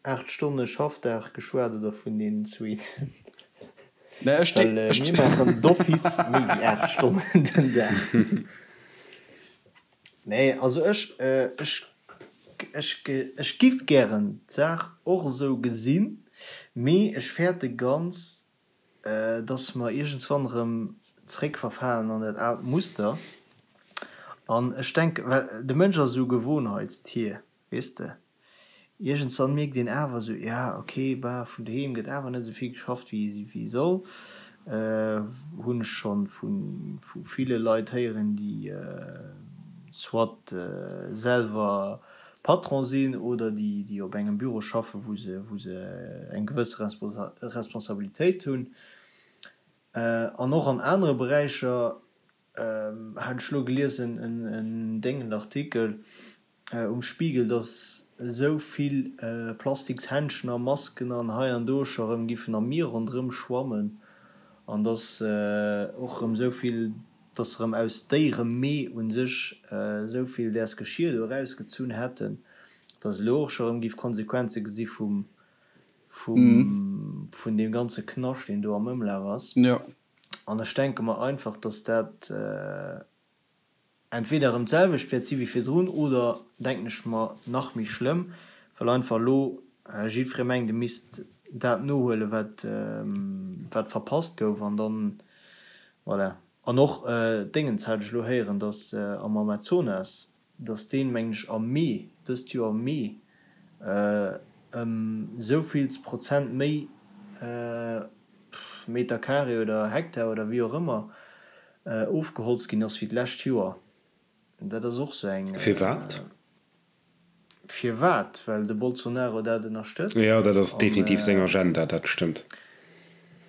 8 Stonne Schaffdag geschwat oder vun deenen zweeten? Well mir maachen d'office méi wéi 8 Stonnen den Dag. Nee, also ech, ech, ech, ech giff gären d'Saach och esou gesinn, mee ech fäerte ganz, dass mer iergendswann erëm zréckverfalen an dat aalt Muster. An ech denken, well de Mënsch ass esou e Gewohnheitstier, Weess de, iergendswann mierkt een awer esou, ja ok, bah, vun doheem gëtt awer net esou vill geschafft wéi soll. Hunn ech scho vu ville Leit héieren, déi soit selwer Patron sinn oder déi op engem Büro schaffen, wou se wou se eng gewësse Responsabilitéit hunn. An och an anere Beräicher hat ech elo geliesen, en déngend Artikel um Spiegel, dass esou vill Plastikshändschen a Masken an hei an do scho rëm giffen am Mier ronderëm schwammen an dass och rëm esou vill, dass se rëm aus Déieremee u sech esou vill däers Geschir do erausgezunn hätten, dass elo och scho rëm giff Konsequenze gesi vum, vum, vun deem ganze Knascht, deen do am Ëmlaf ass. An ech denke mer einfach, dass dat entweder erëm d'selwecht wäert si wéi virdrun oder, denken ech mer, nach méi schlëmm, well einfach elo jiddweree mengt, e misst dat nohuelen, wat, wat verpasst gouf. An dann, voilà. An och Déngens hat ech elo héieren, dass am Amazonas, dass deen, mengen ech, am Mee, dëst Joer am Mee, ëm esou vills Prozent méi Meter carré oder Hektar oder wéi och ëmmer ofgeholzt ginn ass wéi d'lescht Joer. Dat ass och sou eng.
Firwat?
Firwat? Well de Bolsonaro dat ënnerstëtzt.
Jo, dat ass definitiv seng Agenda, dat stëmmt.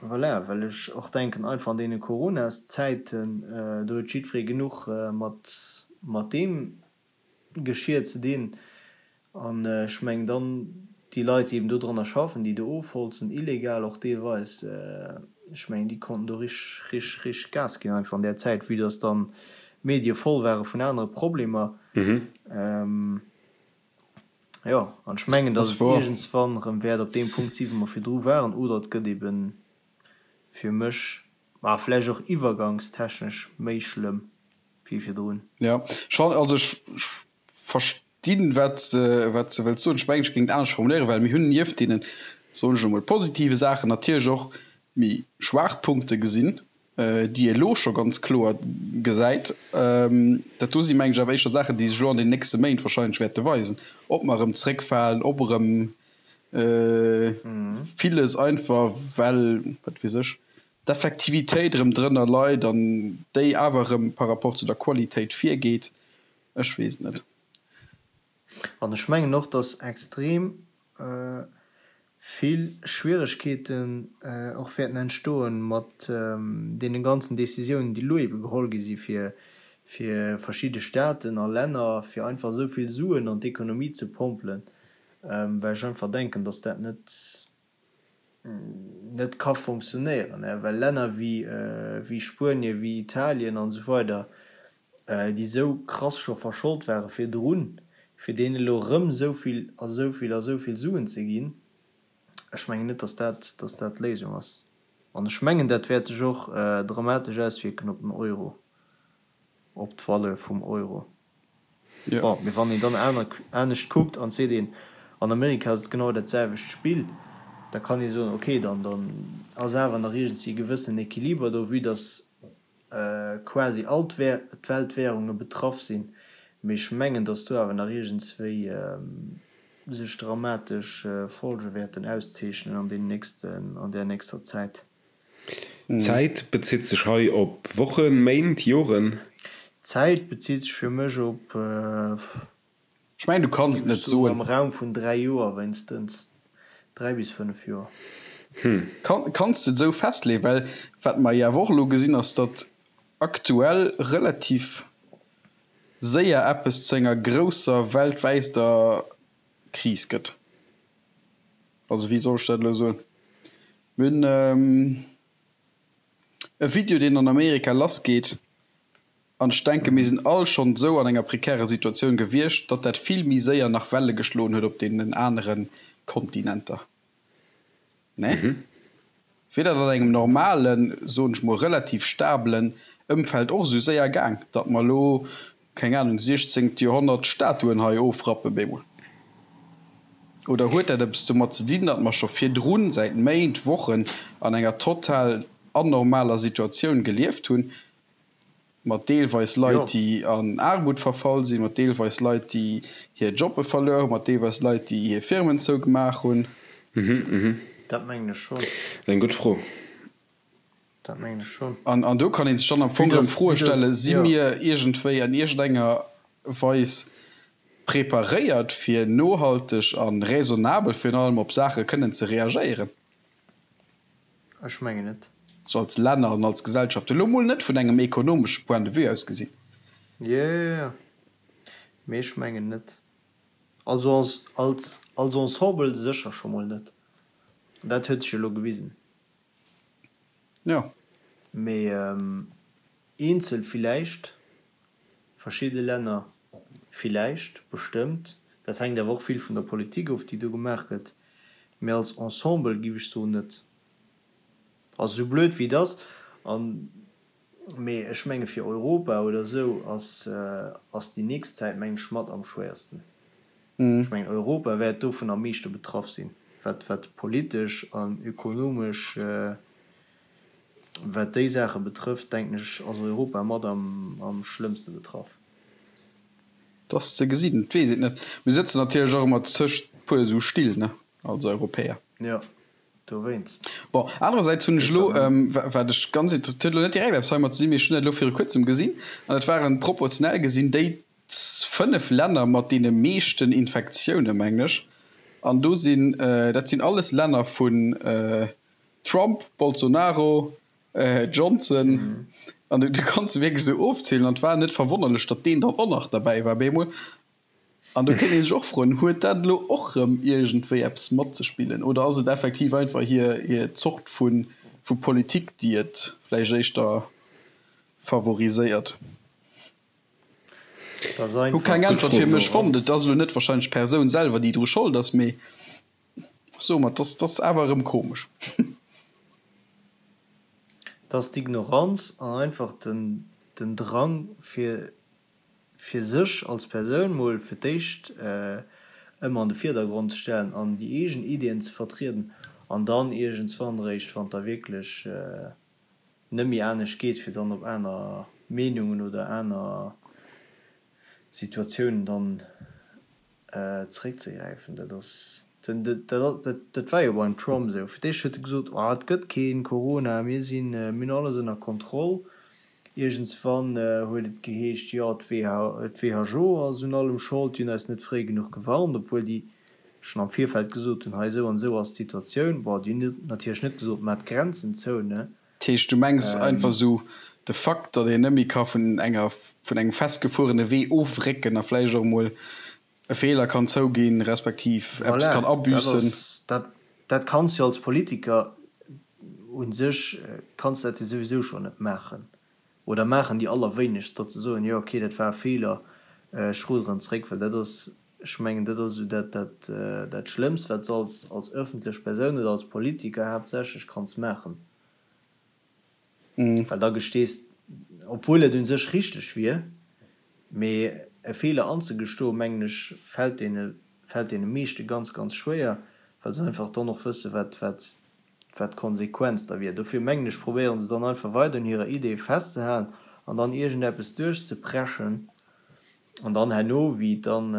Voilà, well ech och denken, einfach an deene Coronaszäiten, do huet jiddweree genuch mat mat deem Geschir ze dinn. An ech mengen, dann. Déi Leit, déi eben do dranner schaffen, déi do ofholzen, illegal och deelweis, ech mengen, déi konnten do rich, rich, rich Gas ginn einfach an där Zäit, vue dass dann d'Medie voll ware vun anere Problemer. Jo, an ech mengen, dass et iergendswann erëm wäert op deem Punkt si wou mer virdru waren, oder et gëtt ebe fir mech, ma vläicht och iwwergangstechnesch méi schlëmm wéi virdrun.
Jo, ech fannen, also ech verstinn, wat se, wat se wëllt soen. Ech mengen, ech géing et anescht formuléieren, well mir hunn nieft deenen, soen ech elo mol, positive Saachen natierlech och méi schwaach Punkte gesinn, déi ee elo scho ganz kloer gesäit. Dat do si mengen ech awer éischter Saachen, déi sech elo an den nächste Méint wahrscheinlech wäerte weisen, ob mer erëm zréckfalen, ob erëm villes einfach, well, wat weess ech, d'Effektivitéit erëm drënner leit an déi awer erëm par rapport zu der Qualitéit virgeet. Ech weess et net.
An ech mengen och, dass extrem vill Schwieregkeeten och wäerten entstoen mat deene ganzen Décisiounen, déi elo ebe geholl gi si fir fir verschidde Staaten a Länner, fir einfach esou vill Suen an d'Ekonomie ze pompelen, well ech einfach denken, dass dat net net ka fonctionnéieren, well Länner wéi Spuenien, wéi Italien an esou weider, déi esou krass scho verscholt ware virdrun, fir deenen elo erëm esou vill a esou vill a esou vill Suen ze ginn, ech mengen net, datt dat, datt dat d'Léisung ass. An ech mengen, dat wäert sech och dramatesch auswierken op den Euro, op d'Valeur vum Euro. Bon, mee wann een dann aner, anescht kuckt an seet een, an Amerika ass et genau dat selwecht Spill, da kann ee soen, okay, dann, dann ass awer nach iergendwéi e gewëssenen Equiliber do, vue dass quasi all d'Weltwährunge betraff sinn. Mee ech mengen, dass do awer nach iergendswéi sech dramatesch Folge wäerten auszeechnen an deenen nächsten, an där nächster Zäit.
Zäit bezitt sech hei op Wochen, Méint, Joren?
Zäit bezitt sech fir mech op,
Ech mengen, du kanns et net soen.
Am Raum vun 3 Joer wéinstens, 3 bis 5 Joer.
Kanns de et esou festleeën? Well wat mer jo awer och elo gesinn, ass, datt aktuell relativ séier eppes zu enger grousser weltwäiter Kris gëtt. Also wéi soll ech dat elo soen? Mir hunn e Video, deen an Amerika lassgeet, an ech denke mir sinn all schonn esou an enger prekärer Situatioun gewiescht, datt dat vill méi séier nach Welle geschloen huet op deenen anere Kontinenter. Nee? Wier dat an engem normalen, soen ech mol relativ stabelen Ëmfeld och esou séier gaang, datt mer elo keng Ahnung, siechzéngt Joerhonnert Statuen hei ofrappen bemol? Oder huet dat eppes domat ze dinn, datt mer scho virdrun säit Méint, Wochen an enger total anormaler Situatioun gelieft hunn, mat deelweis Leit, déi an Aarmut verfall sinn, mat deelweis Leit, déi hir Jobbe verluer hunn, mat deelweis Leit, déi hir Firmen zougemaach hunn?
Dat mengen ech schonn.
Dat ass eng gutt Fro.
Dat mengen ech schonn.
An do kann ee sech dann am Fong erëm Froe stellen, Si mir iergendwéi an iergendenger Weis preparéiert, fir nohalteg a raisonnabel virun allem op Saache kënnen ze reagéieren?
Ech mengen net.
Sou als Länner an als Gesellschaft, elo mol net vun engem ekonomesche Point de vue aus gesinn.
Jo, jo, jo. Mee ech mengen net. Also als, als, als Ensemble sécher scho mol net. Dat huet sech elo gewisen.
Jo.
Mee eenzel villäicht, verschidde Länner villäicht, bestëmmt. Dat hänkt awer och vill vun der Politik of, déi do gemaach gëtt. Mee als Ensemble giff ech soen, net. Also sou blöd wéi et ass, an, mee ech menge fir Europa oder esou ass, ass déi nächst Zäit mengen ech mat am schwéiersten. Ech mengen Europa wäert dovun am meeschte betraff sinn, wat wat politesch an ökonomesch, wat déi Saache betrëfft, denken ech ass Europa mat am am schlëmmste betraff.
Et ass ze gesinn, et weess een et net. Mir sëtzen natierlech och ëmmer tëscht puer esou Still, ne, als Europäer.
Jo, dowéinst.
Bon, anerersäits hunn ech elo, wat ech ganz inter, et huet elo net direkt eppes heimat ze dinn, mee ech hunn dat elo viru kuerzem gesinn, an dat waren proportionell gesinn déi 5 Länner mat deene meeschten Infektioune mengen ech, an do sinn, dat sinn alles Länner vun Trump, Bolsonaro, Johnson, an du kanns se wierklech esou ofzielen, an et war net verwonnerlech, datt deen dann och nach derbäi war bemol. An do kéint ee sech och froen, huet dat elo och erëm iergendwéi eppes matzespillen oder ass et effektiv einfach hir, hir Zort vu, vu Politik, déi et vläicht éischter favoriséiert? Hu keng Äntwert fir mech fonnt. Et ass elo net wahrscheinlech d'Persoun selwer, déi dru Schold ass, mee soe mer, et ass awer erëm komesch.
Et ass d'Ignoranz an einfach den Drang fir fir sech als Persoun mol fir d'éischt ëmmer an de Virdergrond ze stellen an déi eegen Ideeën ze vertrieden an dann iergendswann eréischt, wann et da wierklech net méi anescht geet, fir dann op aner Meenungen oder aner Situatiounen dann zeréckzegräifen. Dat ass, dat war jo beim Trump esou. Fir d'éischt huet e gesot, oh et gëtt kee Corona, mir sinn, mir hunn alles ënner Kontroll. Iergendswann huet et geheescht, jo d'WHO ass un allem Schold, déi hunn eis net fréi genuch gewarnt, obwuel déi schonn am Virfeld gesot hunn, hei esou an esou ass d'Situatioun. Bon, déi hunn natierlech net gesot, maach d'Grenzen zou, ne?
Dat heescht, du mengs einfach esou de Fakt, datt een net méi ka vun enger, vun engem festgefuerene Wee ofrécken a vläicht och emol e Feeler kann zouginn, respektiv eppes
Voilà,
kann
dat
abüssen.
ass, dat, dat kanns jo als Politiker u sech kanns dat jo souwisou schonn net maachen. Oder maachen déi allerwéinegst, datt se soen, jo okay, dat war e Feeler, ech ruderen zréck. Well dat ass, ech mengen, dat ass esou dat, dat, dat Schlëmmst, wat s de als, als ëffentlech Persoun oder als Politiker haaptsächlech kanns maachen. Well da gestees, obwuel et un sech richteg wier, mee e Feeler anzegestoen, mengen ech, fält deene, fält deene meeschte ganz, ganz schwéier, well se einfach dann och wësse wat, wat, wat d'Konsequenz da wier. Dofir mengen ech, probéiere se dann einfach weider un hirer Idee festzehalen an dann iergendeppes duerchzepreschen an dann herno, wéi et dann,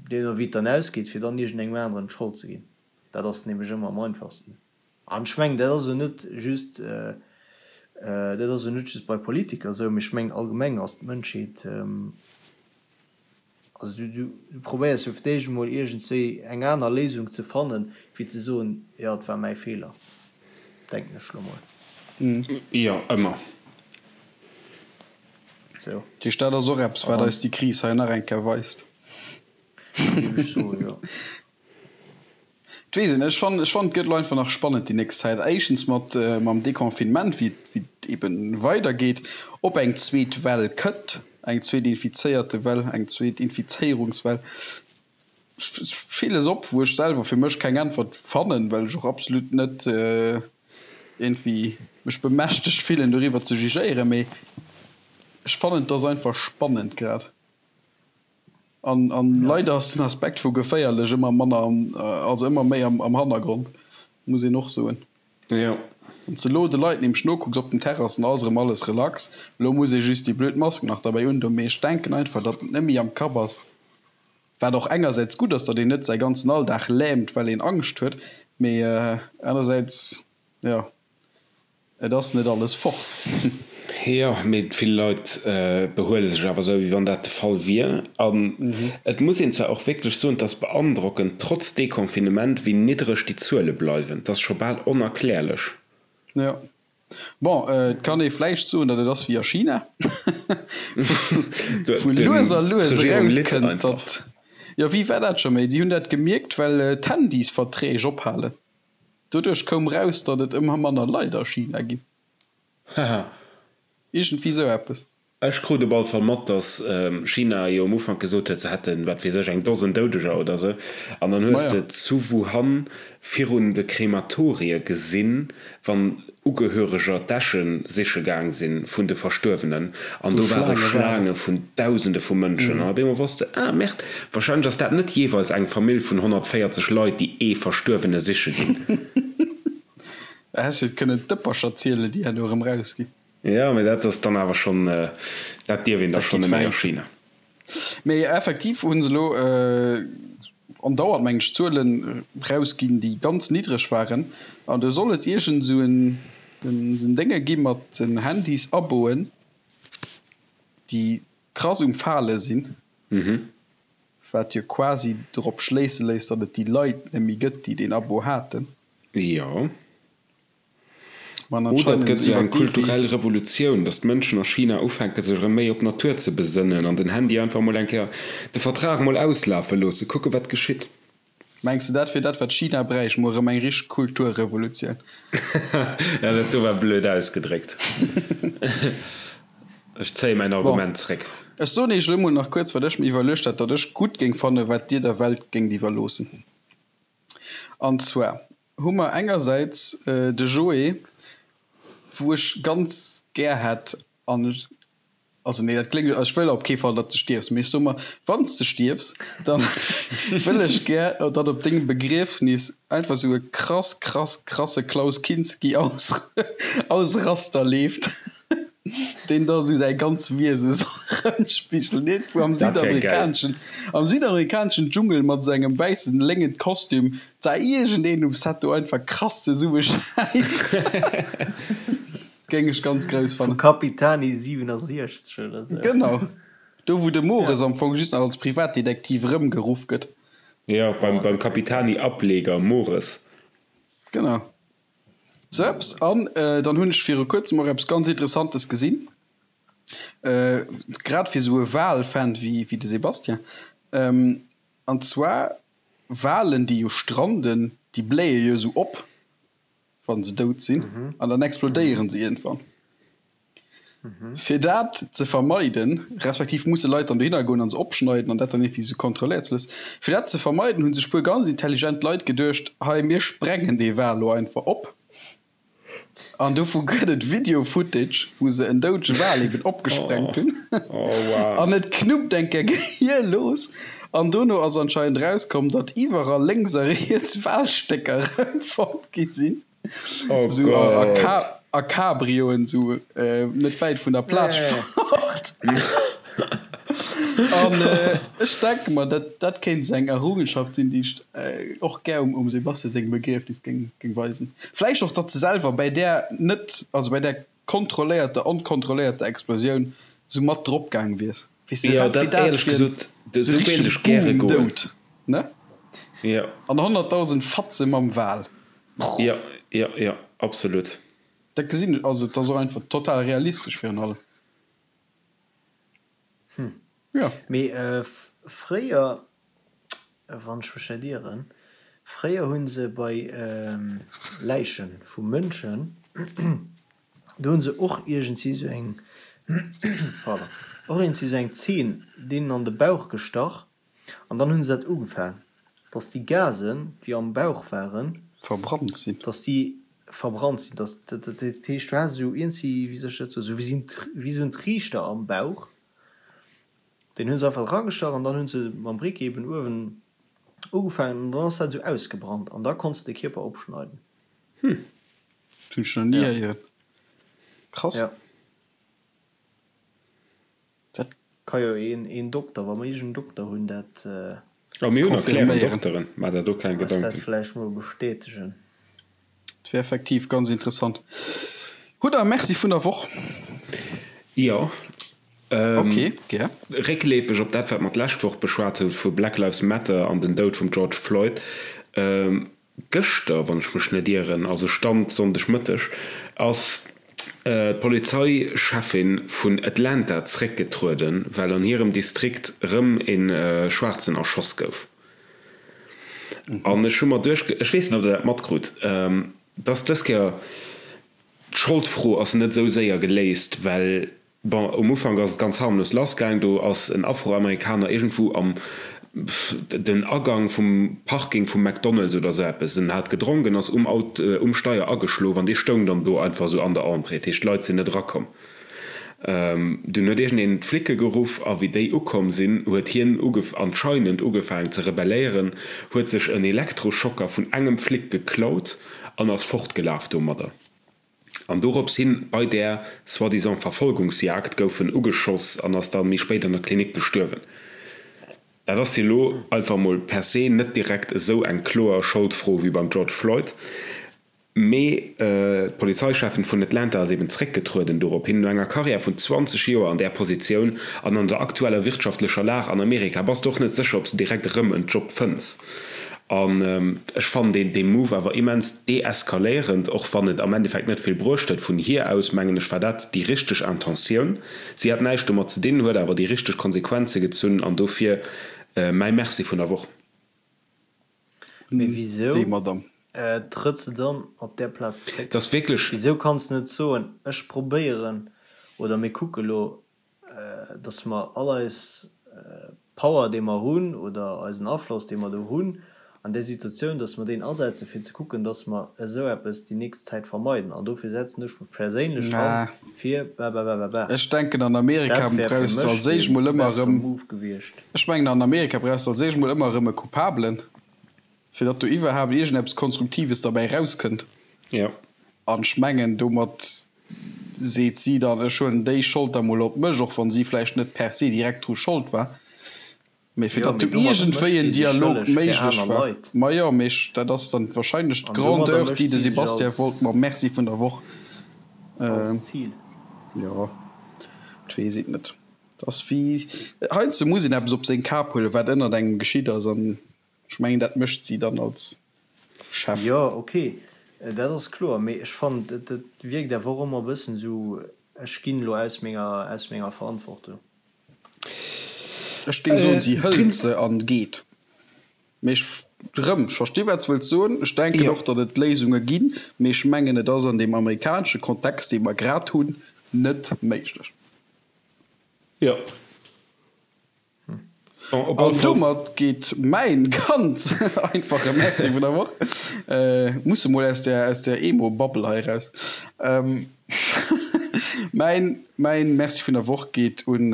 deemno wéi et dann ausgeet, fir dann iergendengem aneren d'Schold ze ginn. Dat ass nämlech ëmmer am einfachsten. An ech mengen, dat ass elo net just, dat ass elo net just bei Politiker esou, mee ech mengen allgemeng ass d'Mënschheet, also du, du probéiers jo fir d'éischt emol iergendswéi eng aner Léisung ze fannen, wéi ze soen, jo et war mäi Feeler, denken ech elo mol.
Jo, ëmmer.
Sou.
Dat heescht, dat ass och eppes, wat eis déi Kris hei nach eng Kéier weist.
Géif ech soen, jo.
Et weess een net. Ech fannen, ech fannen, et gëtt elo einfach nach spannend déi nächst Zäit. Éischtens mat mam Deconfinement, wéi et, wéi et eben weidergeet, ob eng zweet Well kënnt, eng zweet Infizéierte-Well, eng zweet Infizéierungswell. Villes op, wou ech selwer fir mech keng Äntwert fannen, well ech och absolut net iergendwéi mech bemächtegt fillen, doriwwer ze jugéieren. Mee ech fannen, et ass einfach spannend grad. An, an leider ass den Aspekt vu geféierlech ëmmer manner am, also ëmmer méi am, am Hannergrond, muss een och soen.
Jo.
Wann s de elo de Leit nämlech nokucks op den Terrassen, ass erëm alles relax. Elo muss ee just déi blöd Mask nach derbäi undoen. Mee ech denken einfach, datt et net méi am Kapp ass, wat och engersäits gutt ass, datt een net säi ganzen Alldag lähmt, well een Angscht huet, mee anersäits, jo. Et ass net alles fort.
Jo, mee vill Leit behuele sech awer esou, wéi wann dat de Fall wier. An et muss een zwar och wierklech soen, et ass beandrockend, trotz Deconfinement, wéi niddreg déi Zuele bleiwen. Et ass scho bal onerklärlech.
Jo. Bon, et kann ee vläicht soen, datt et ass wéi a China, wou lues a lues erauskënnt, datt, jo, wéi war dat scho méi? Déi hunn dat gemierkt, well d'Handysverträg ophalen. Doduerch koum raus, datt et ëmmer manner Leit a China ginn.
Haha.
Iergendwéi sou eppes.
Ech krut op alle Fall mat, datt China jo um Ufank gesot huet, se hätten, wat weess ech, eng Dosen Doudeger oder sou. An dann hues de zu Wuhan virun de Krematorie gesinn, wann Ugehöreger d'Äsche siche gaang si vun de Verstuerwenen, an do ware Schlaange vun Dausende vu Mënschen. An op eemol wosst de, Ah, Merde, warscheinlech ass dat net jeeweils eng Famill vun 140 Leit, déi ee Verstuerwene siche ginn.
Da häss jo kënnen d'Dëppercher zielen, déi herno erëm rausginn.
Jo, mee dat ass dann awer schonn, dat dierf een da schonn net méi a China.
Mee effektiv hu se elo andauernd, mengen ech, Zuelen rausginn, déi ganz niddreg waren. An do soll et iergend esou en Dénge gi mat den Handys-Aboen, déi krass um Fale sinn, wat jo quasi dorop schléisse léisst, datt et déi Leit net méi gëtt, déi deen Abo haten.
Jo.
An
Oder et
anscheinend
gëtt esou
iwwer
eng
d'Evi.
kulturell Revolutioun, datt d'Mënschen a China ufänke sech erëm méi op d'Natur ze besënnen an den Handy einfach mol eng Kéier, de Vertrag mol auslafe loosse, kucke wat geschitt.
Mengs de dat wier dat wat China bräicht, mol erëm eng richteg Kulturrevolutioun?
Ja, dat do war blöd ausgedréckt. Ech zéie mäin
Bon,
Argument zréck.
ech soen iech elo mol nach kuerz wat ech mir iwwerluecht hat, datt ech gutt géing fannen, wat dir der Welt géingt iwwerloossen. An zwar hu mer engersäits de Joé, wou ech ganz gär hätt, an ech, also nee, dat kléngt, ech wëll op kee Fall, datt s de stierfs, mee ech soe mer, wann s de stierfs, da wëll ech gär, datt op dengem Begriefnis einfach esou e krass, krass, krasse Klaus Kinski Ausraster leeft. Deen da sou säi ganz Wiese soll erëmspigelen. Iergendwou am
Dat wär geil.
südamerikaneschen, am südamerikaneschen Dschungel mat sou engem wäissen léngen Kostüm, da iergendeen um Set do einfach krass zesummeschäisst. Géing ech ganz grouss
Vu
fannen.
Capitani 67 oder sou.
Genau. Do wou de Mores
Ja.
am Fong just nach als Privatdetektiv erëmgeruff gëtt.
Jo, beim,
Oh,
beim
dat wär geil.
Capitani-Ableger Mores.
Genau. Sou eppes. An dann hunn ech viru kuerzem och eppes ganz Interessantes gesinn, grad fir esou e Wal-Fan wéi de Sébastien. An zwar Walen, déi jo stranden, déi bléie jo esou op, wa se dout sinn, an dann explodéiere se iergendwann. Fir dat ze vermeiden, respektiv musse Leit dann dohinner goen an se opschneiden an dat dann iergendwéi sou kontrolléiert ze loossen, fir dat ze vermeiden, hu sech puer ganz intelligent Leit geduecht, hei mir sprengen dee Wal lo einfach op. An dovu gëtt et Video-Footage, wou se en doudege Wal eben opgesprengt hunn. An et knuppt eng Kéier gehierlos. An dono ass anscheinend erauskomm, datt iwwerall lénks a riets Walstécker erëmfonnt gi sinn.
Oh
Sou a,
Gott.
a, a Cabrioen, sou äh, net wäit vun der Plage fort. An äh, ech denke mer, dat, dat kéint sou eng Errungenschaft sinn, déi ech äh, och gär um, um Sebastian sengem Begriefnis géing, géing weisen. Vläicht och, datt se selwer bäi där net, also bäi där kontrolléierter, onkontrolléierter Explosioun sou mat drop gaang wiers. Weess de,
Jo,
wat wier
dat
dat
éierlech
fir en
gesot,
sou
sou wéilt
richtege
ech gäre goen.
Boom-Doud, ne?
Jo.
An 100.000 Fatze mam Wal.
Jo, jo, jo, absolut.
Dat gesinn ech, also et ass och einfach total realistesch virun allem.
Hm.
Jo.
Mee fréier, wann ech mech net ieren, fréier hu se bei Läiche vu Mënschen, do hu se och iergendwéi sou eng, pardon, och iergendwéi sou eng Zeen deenen an de Bauch gestach An dann hunn se dat ugefaang, dass déi Gasen, déi am Bauch waren,
Verbrannt sinn.
dass déi verbrannt sinn. Dass, dat heescht, du has esou iergendwéi, wéi soll ech dat soen, esou wéi esou en Triichter am Bauch, deen hunn se einfach eragestach an dann hunn se mam Briquet eben uewen ugefaangen an dann ass dat esou ausgebrannt an da konns de de Kierper opschneiden.
Hm, dat hunn ech nach ni héieren. Krass.
Ja.
Dat
Ka jo een een Dokter, wa mer iergend en Dokter hunn, dat.
Oh, mir hunn erklären
confirméieren.
Dokteren, maach der do keng
Eis dat
Gedanken.
vläicht mol bestätegen.
Dat wär effektiv ganz interessant. Hutt der e Merci vun der Woch?
Jo.
Ok, gär.
Réckleefeg op dat, wat mer d'lescht Woch beschwat hu vu Black Lives Matter an den Doud vum George Floyd. Gëschter, wann ech mech net ieren, also Stand Sonndegmëtteg, ass d'Polizeicheffin vun Atlanta zréckgetrueden, well an hirem Distrikt rëm e Schwaarzen erschoss gouf. An ech hu mer duecht, ech weess net, ob Der dat matkrut, dass dës Kéier d'Scholdfro ass net esou séier geléist, well Bon, um Ufank ass et ganz harmlos lass gaang. Do ass en Afroamerikaner iergendwou am den Agang vum Parking vum McDonald's oder sou eppes, en hat gedronk, en ass um Aut um Steier ageschlof an dee stoung dann do einfach sou an der Entrée. Dat heescht, d'Leit sinn net erakomm. Dunn huet iergendeen d'Flicke geruff a wéi déi ukomm sinn, huet hien anscheinend ugefaangen ze rebelléieren, huet sech en Elektroschocker vun engem Flic geklaut an ass fortgelaf domadder. An dorops hin, bei där soi-disant Verfolgungsjagd, gouf en ugeschoss an ass dann méi spéit an der Klinik gestuerwen. Dat ass jo elo einfach mol per se net direkt esou eng kloer Scholdfro wéi beim George Floyd, mee d'Polizeicheffin vun Atlanta ass eben zréckgetrueden dorop hin. No enger Karriär vun 20 Joer an där Positioun an an der aktueller wirtschaftlecher Lag an Amerika bass de och net sécher, ob s de direkt erëm en Job fënns. An ech fannen deen dee Move awer immens deeskaléierend, och wann et am Endeffekt net vill bruecht huet. Vun hir aus, mengen ech, war dat déi richteg Intentioun. Si hat näischt domat ze dinn, huet awer déi richteg Konsequenze gezunn an dofir mäi Merci vun der Woch.
Mee wisou
Déi Madame.
trëtt se dann op där Plaz zréck?
Dat ass wierklech.
Wisou kanns de net soen, ech probéieren oder mir kucke lo, dass mer all eis Power, déi mer hunn, oder eisen Afloss, dee mer do hunn an där Situatioun, dass mer deen asetzen, fir ze kucken, dass mer esou eppes déi nächst Zäit vermeiden. An dofir setzen ech mech perséinlech an, fir bababababa.
Ech denken, an Amerika
Dat wär fir
brauchs de
mech
als éischt
dee
mol ëmmer
bessere
erëm,
Move gewiescht.
ech mengen, an Amerika brauchs de als éischt mol ëmmer erëm e Coupablen, fir datt do iwwerhaapt iergendeppes Konstruktives derbäi erauskënnt.
Jo.
An ech mengen, domat seet si dann, ech huelen déi Schold da mol op mech, och wann si vläicht net per se direkt dru Schold war, mee fir
Jo,
datt
mee
do
domadder
iergendwéi
mécht
en
si sech
Dialog
schëlleg fir
méiglech
aner
war.
Leit.
Majo, mee ech, dat ass dann wahrscheinlech
An domadder
d'Grandeur,
mécht
déi de
si sech
Sebastian
als,
wollt mam Merci vun der Woch,
als Zil.
jo, et weess et net. Et ass wéi, heiansdo muss een eppes op seng Kap huelen, wat ënnert engem geschitt ass, an Ech mengen dat mécht si dann als Chef.
Jo, ok, dat ass kloer, mee ech fannen et et wierkt awer och ëmmer e bëssen esou, ech ginn elo aus menger aus menger Verantwortung.
Ech géing soen, si hëlt se an geet. Mee ech, erëm, ech versti wat s wëlls soen. Ech denken och, datt et Léisunge ginn, mee ech mengen et ass an deem amerikanesche Kontext, dee mer grad hunn, net méiglech.
Jo.
An domat geet mäin ganz einfache Merci vun der Woch, musse mol aus der aus der Emo-Bubble hei raus, mäin mäin Merci vun der Woch geet un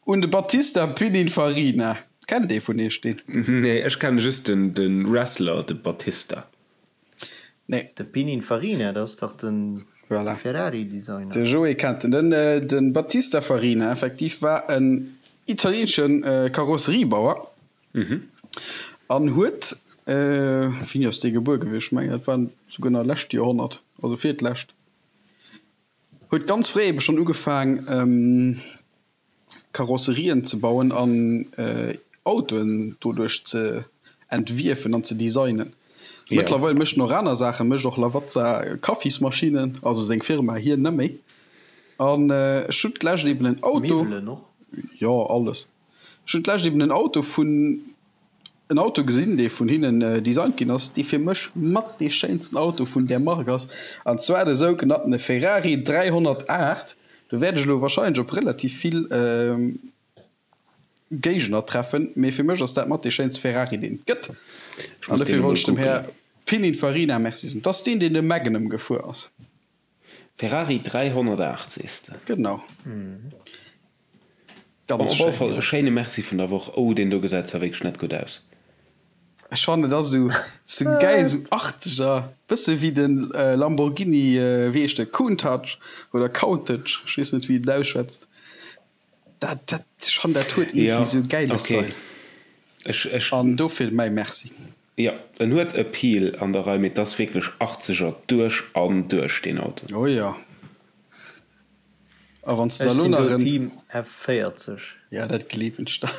un de Battista Pininfarina. Kennt ee vun iech deen?
Nee, ech kenne just den de Wrestler, de Batista.
Nee.
De Pininfarina, dat ass dach den
Voilà.
Ferrari-Designer.
De Joé kennt en. Den, den Battista Farina effektiv war en italieenesche Karosseriebauer an huet, wéini ass dee gebuer gewiescht? Ech mengen dat war souguer nach lescht Joerhonnert, also virtlescht, huet ganz fréi ebe schonn ugefaang, Karosserien ze bauen an Autoen doduerch ze entwierfen an ze designen. Mëttlerweil mécht en och aner Saachen, mécht och Lavazza Kaffismaschinnen, also seng Firma, hien net méi. An ech hunn d'lescht eben en Auto.
Miwwelen och?
Jo, alles. Ech hunn d'lescht eben en Auto vun en Auto gesinn, dee vun hinnen designt ginn ass, dee fir mech mat dee schéinsten Auto vun där Mark ass, an zwar de sougenanntene Ferrari 308. Do wäert ech elo wahrscheinlech op relativ vill Géigner treffen, mee fir mech ass dat mat dee schéinste Ferrari, deen et gëtt. An dofir wollt ech dem Här Pininfarina Merci soen. Dat ass deen, deen de Magnum gefuer ass.
Ferrari 308 sees de?
Genau.
Bon, op alle Fall e schéine Merci vun der Woch. Oh, deen do gesäit zwar wierklech net gutt aus.
Ech fannen et ass esou sou gäil, sou Achtzeger, bësse wéi de Lamborghini, wéi heescht de, Countach oder Countach, ech weess net wéi een et ausschwätzt. Dat, dat, ech fannen dat huet iergendwéi sou e gäile Style. An dofir mäi Merci.
Jo, en huet Appeal an der Rei, mee et ass wierklech Achtzeger duerch an duerch deen Auto.
Oh jo. A wann s de
Ech
da lo
sinn
nach
do
en.
Team F40.
Ja, dat gleewen ech der.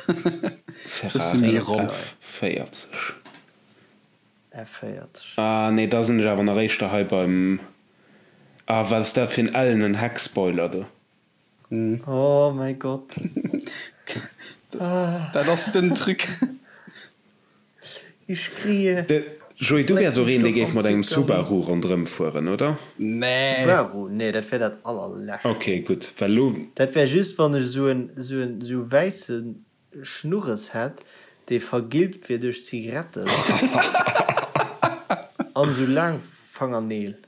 Bësse méi
Ferrari
ronn.
F40.
F40.
Ah nee, da sinn ech awer nach éischter hei beim, ah wat ass dat fir en ellenen Heckspoiler do.
Oh mäi Gott.
Dat ass den Truc.
Ich schrie.
De Joé, du wäers och een, dee géif mat engem Subaru ronderëm fueren, oder?
Nee.
Subaru? Nee, dat wär dat allerlescht.
Ok, gutt, well elo.
Dat wär just, wann ech esou en, esou en, esou e wäisse Schnurres hätt, dee vergilbt wier duerch Zigaretten an esou laang Fangerneel.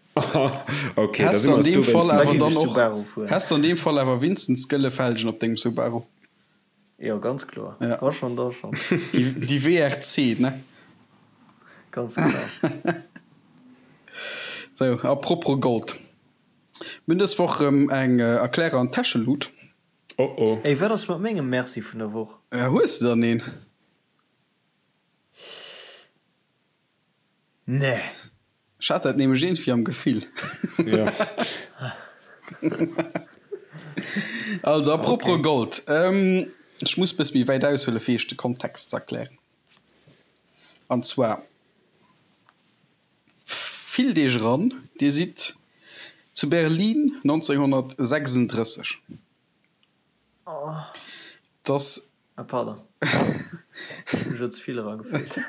Ok, da
Häss
si
de
mer
an
eis
deem Fall
dowéinst
awer
net
dann
eens.
och,
Subaru fueren.
häss de an deem Fall awer winstens gëlle Felgen op dengem Subaru?
Jo, ganz kloer.
Ja.
Da schon, da schon.
Déi, déi WRC, ne?
Ganz genau.
Sou, a propos Gold. Mir hunn dës Woch erëm eng Erklärer an Täschelut.
Oh oh.
Ey, wat ass mat mengem Merci vun der Woch?
Hues de dann een?
Nee.
Ech hat dat nämlech iergendwéi am Gefill.
Jo.
Also, a propos Gold. Ech muss bësse méi wäit aushuelen, fir iech de Kontext ze erklären. An zwar fillt Iech eran, Dir sidd zu Berlin 1936. Dass.
Ah pardon, ech hu mech elo ze vill eragefillt.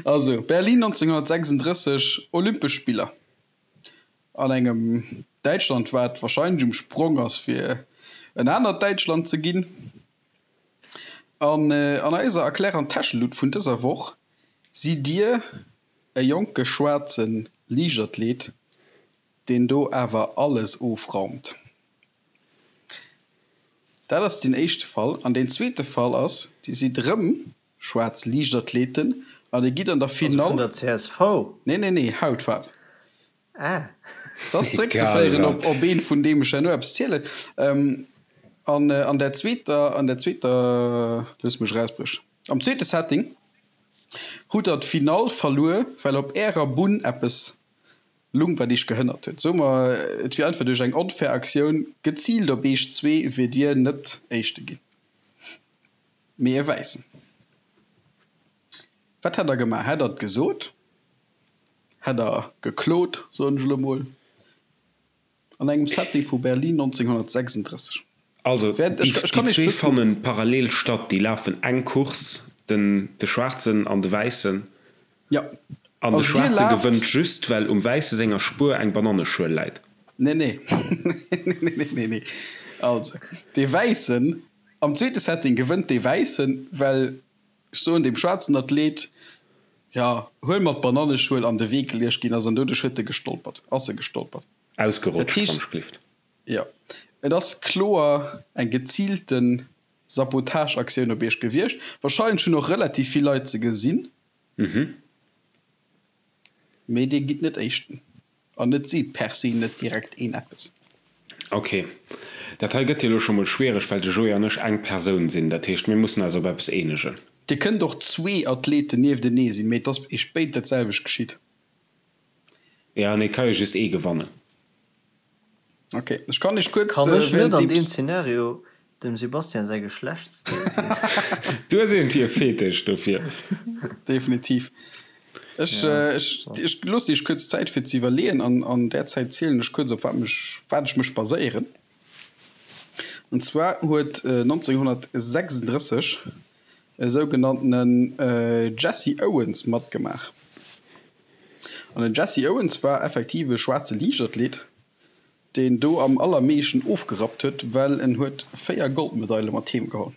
Also, Berlin 1936, Olympesch Spiller an engem Däitschland, wat wahrscheinlech um Sprong ass fir en anert Däitschland ze ginn. An an eiser Erklär an Täschelut vun dëser Woch sidd Dir e jonke schwaarze Liichtathlet, deen do awer alles ofraumt. Dat ass deen éischte Fall. An deen zweete Fall ass, Dir sidd erëm schwaarz Liichtathleten an Dir gitt an der Finall.
Also vun der csv?
Nee, nee, nee, Hautfaarf.
Ah.
Dat ass zeréckzeféieren op op een, vun deem ech herno eppes zielen. An an der zweeter, an der zweeter, looss mech erausbriechen, am zweete Setting hutt Der d'Finall verluer, well op Ärer Bunn eppes Lung wat iech gehënnert huet. Soe mer et wier einfach duerch eng onfair Aktioun geziilt op iech zwee wier dir net éischte ginn, mee e wäissen. Wat hätt der gemaach? Hätt der et gesot? Hätt der geklot, soen ech elo mol, an engem Setting vu Berlin 1936?
Also déi zwee fanne parallel statt, déi lafen eng Course, den de Schwaarzen an de Wäissen.
Jo.
An de Schwaarze gewënnt just, well um Wäisse senger Spuer eng Bananneschuel läit.
Nee, nee. Nee, nee, nee. Also, dee Wäissen, am zweete Setting gewënnt dee Wäissen, well, ech soen, deem schwaarzen Athlet, jo, huel mer d'Bananneschuel an de Wee geluecht ginn ass an doduerch huet e gestolpert, ass e gestolpert.
Ausgerutscht, wann ech gelift.
Jo, et ass kloer eng geziilte Sabotageaktioun op iech gewiescht. Wahrscheinlech hunn och relativ vill Leit se gesinn. Mee dir gitt net Éischten. An et seet per se net direkt een eppes.
Ok. Dat hei gëtt jo elo scho mol schwiereg, well de Joé an ech eng Persoun sinn. Dat heescht, mir mussen eis op eppes eenegen.
Dir kënnt och zwee Athleten nieftenee sinn, mee et ass iech béid dat selwecht geschitt.
Jo, nee, et ka jo just ee gewannen.
Ok, ech kann iech kuerz
Kann ech net an deem Szenario dem Sebastian säi Geschlechtsdeel sinn?
Du hues iergendwéi e Fetisch dofir.
Definitiv. Ech, ech, ech loossen iech kuerz Zäit fir ze iwwerleeën an an där Zäit zielen ech kuerz op wat mech, wat ech mech baséieren. An zwar huet 1936 e sougenanntenen Jesse Owens matgemaach. An den Jesse Owens war effektiv e schwaarze Liichtathlet, deen do am allermeeschten ofgerappt huet, well en huet 4 Goldmedaile mat heem geholl.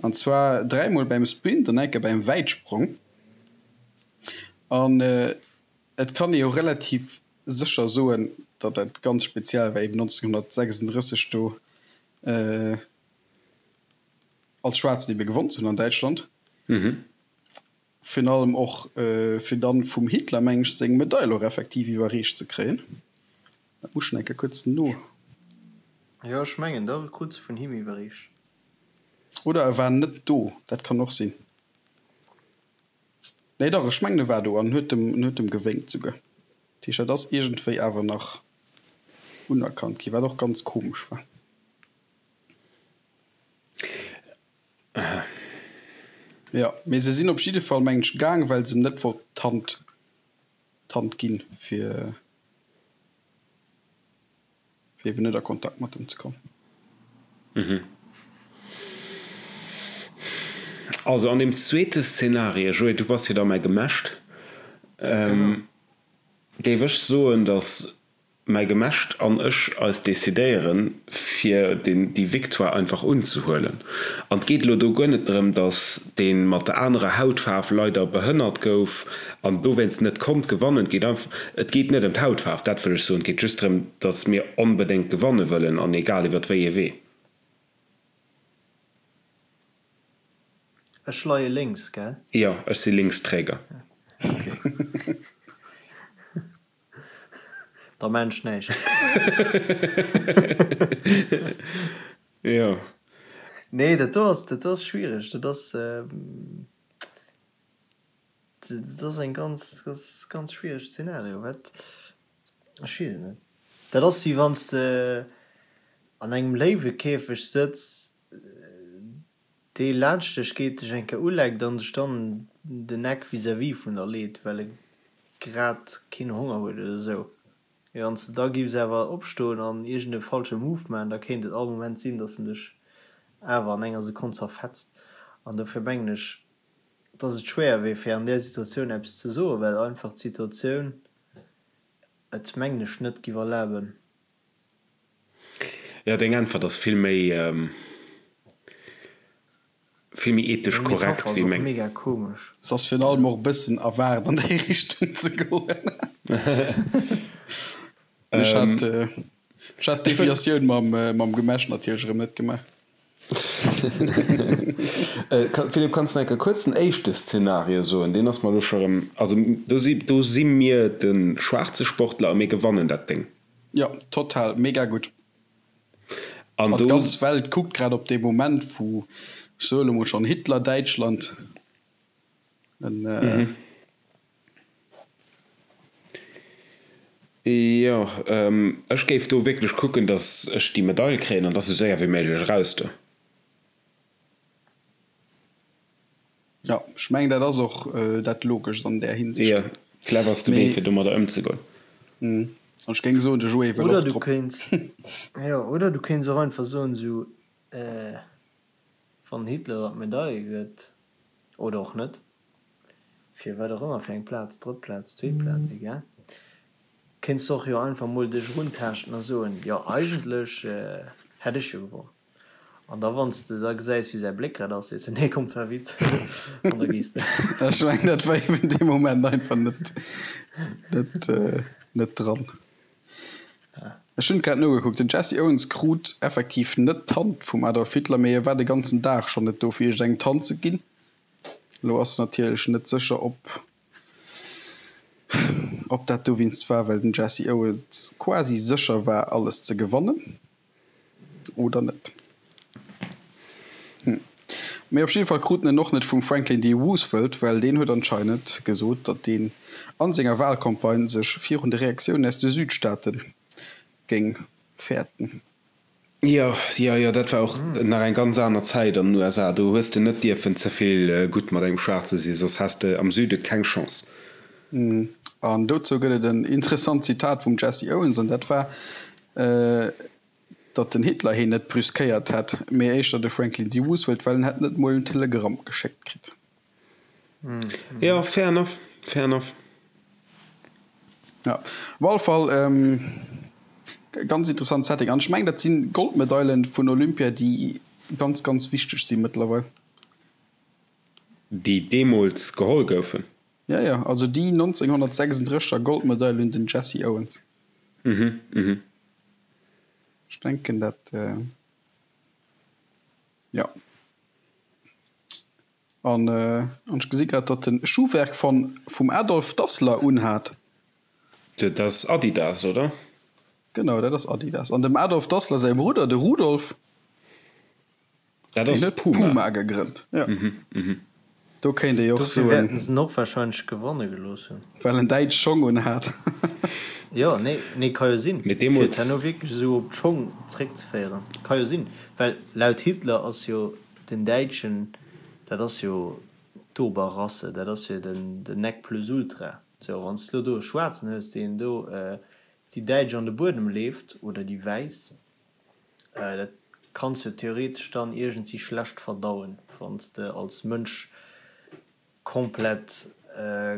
An zwar dräimol beim Sprint an eng Kéier beim Wäitsprong. An et kann ee jo relativ sécher soen, datt dat ganz speziell war, eben 1936 do als Schwaarzen ebe gewonn ze hunn an Däitschland. Virun allem och fir dann vum Hitler, meng ech, seng Medail och effektiv iwwerreecht ze kréien. Dat muss ech nach eng Kéier kuerz no.
Jo, ech mengen da krut se vun him iwwerreecht.
Oder e war net do, dat kann och sinn. Nee dach, ech mengen e war do an huet em, huet em gewénkt souguer. Dat heescht, dat ass iergendwéi awer nach unerkannt ginn, wat och ganz komesch war. Jo, mee se sinn op jidde Fall, mengen ech, gaang, well se em net wollt d'Hand, d'Hand ginn, fir, fir eben net a Kontakt mat em ze kommen.
Also an deem zweete Szenario, Joé, du bass jo da mäi Gemescht, géif ech soen, datt Mäi Gemescht an ech eis decidéieren, fir déi Victoire einfach unzehuelen. An 't geet elo do guer net drëm, datt dee mat der anerer Hautfaarf leider behënnert gouf an dowéinst net konnt gewannen. 't geet einfach, et geet net ëm d'Hautfaarf, dat wëll ech soen. 't geet just drëm, datt mir onbedéngt gewanne wëllen an egal iwwer wéi ee Wee.
Ech leie lénks, gell?
Jo, ech si Linksträger.
Ok. Da maan ech näischt.
Jo.
Nee, dat do ass, dat do ass schwiereg. Dat ass, dat ass eng ganz, ganz, ganz schwiereg Szenario. Wat, ech weess et net. Dat ass wéi wann s de an engem Léiwekäfeg sëtz. Dee laanscht dech geet, dech eng Kéier uleckt an sech dann den Eck vis-à-vis vun der leet, well e grad keen Honger huet oder esou. Mee wann s de da giffs awer opstoen an iergend e falsche Move maachen, da kéint et all Moment sinn, dass en dech awer an enger Sekonn zerfetzt. An dofir mengen ech, dass et schwéier wier, fir an där Situatioun eppes ze soen, well einfach d'Situatioun et, mengen ech, net giff erlaben.
Jo, deng Äntwert ass vill méi, vill méi ethesch
Meng
korrekt
Metapher ass
wéi
och
meng.
mega komesch.
Se ass virun allem och e bëssen erwaart an déi Richtung ze goen. Mee ech hat, ech hat d'Deviatioun mam, mam Gemesch natierlech erëm net gemaach.
Philippe, kanns de enke kuerz den éischte Szenario soen? Deen ass mer elo scho rëm, also do si, do si mir de schwaarze Sportler a mir gewannen dat Déng.
Jo, total, mega gutt.
An
An
do.
d'ganz Welt kuckt grad op dee Moment, wou, ech soe lo mol schonn, Hitler-Däitschland en.
Jo, ech géif do wierklech kucken, datt ech déi Medail kréien an da sou séier wéi méiglech eraus do.
Jo, ech mengen, dat ass och dat Logescht an där Hinsicht.
Jo, cleverste Wee, fir domadder ëmzegoen.
An ech géing soen, de Joé wëll
Oder
och
du
drop.
kéints, jo, oder du kéints och einfach soen, esou, wann Hitler der d'Medail gëtt, oder och net, fir wat och ëmmer fir eng Plaz, drëtt Plaz, zweet Plaz, egal, kéints de och jo einfach mol dech eruntaaschten a soen, jo eigentlech hätt ech jo gewonn. An da wann s de da gesäis wéi säi Bléck grad ass, sees de, nee komm, war e Witz, an da gees de.
Ech mengen dat war eben dee Moment einfach net, net, net dran. Ech hunn grad nogekuckt, den Jesse Owens krut effektiv net d'Hand vum Adolf Hitler, mee e war de ganzen Dag schonn net do fir iergendengem d'Hand ze ginn. Elo ass natierlech net sécher, ob ob dat dowéinst war, well den Jesse Owens quasi sécher war, alles ze gewannen oder net. Hm. Mee op jidde Fall krut en en och net vum Franklin D. Roosevelt, well deen huet anscheinend gesot, datt deen a senger Walcampagne sech virun de Reaktiounen aus de Südstaate géing fäerten.
Jo, jo, jo, dat war och nach eng ganz aner Zäit an den USA. Do hues de net dierfen ze vill gutt mat engem Schwaarze sinn, soss has de am Süde keng Chance.
An dozou gëtt et en interessant Zitat vum Jesse Owens, an dat war, datt den Hitler heen net brüskéiert hätt, mee éischter de Franklin D. Roosevelt, well en hätt net mol en Telegramm geschéckt kritt.
Jo, fair enough, fair enough.
Ja, op alle Fall ganz interessant Setting. An ech mengen, dat si Goldmedailen vun Olympia, déi ganz, ganz wichteg si mëttlerweil.
Déi deemools geholl goufen.
Ja, ja, also déi 1936 er Goldmedail un den Jesse Owens.
Mhm, mhm.
Ech denken, dat, jo. An ech gesi grad, datt en Schuhwerk von vum Adolf Dassler unhat.
Dat ass Adidas, oder?
Genau, dat ass Adidas. An dem Adolf Dassler säi Brudder, de Rudolf,
Dat
deen
ass
huet
Puma.
Puma gegrënnt. Jo. Do kéint ee jo och
Dofir
soen.
wäerten se en och wahrscheinlech gewanne gelooss hunn.
Well en däitsch Schong unhat.
Jo, nee, nee, ka jo sinn.
Mee
Fir et
deemools.
herno wierklech esou op d'Schong zréckzeféieren. Ka jo sinn. Well laut Hitler ass jo Den Däitschen, dat ass jo d'Oberrasse, dat ass jo den Nec plus ultra. Sou, wann s de lo do e Schwaarzen hues, deen do déi Däitsch an de Buedem leeft, oder déi Wäiss, dat kanns jo theoretesch dann iergendsi schlecht verdauen, wann s de als Mënsch komplett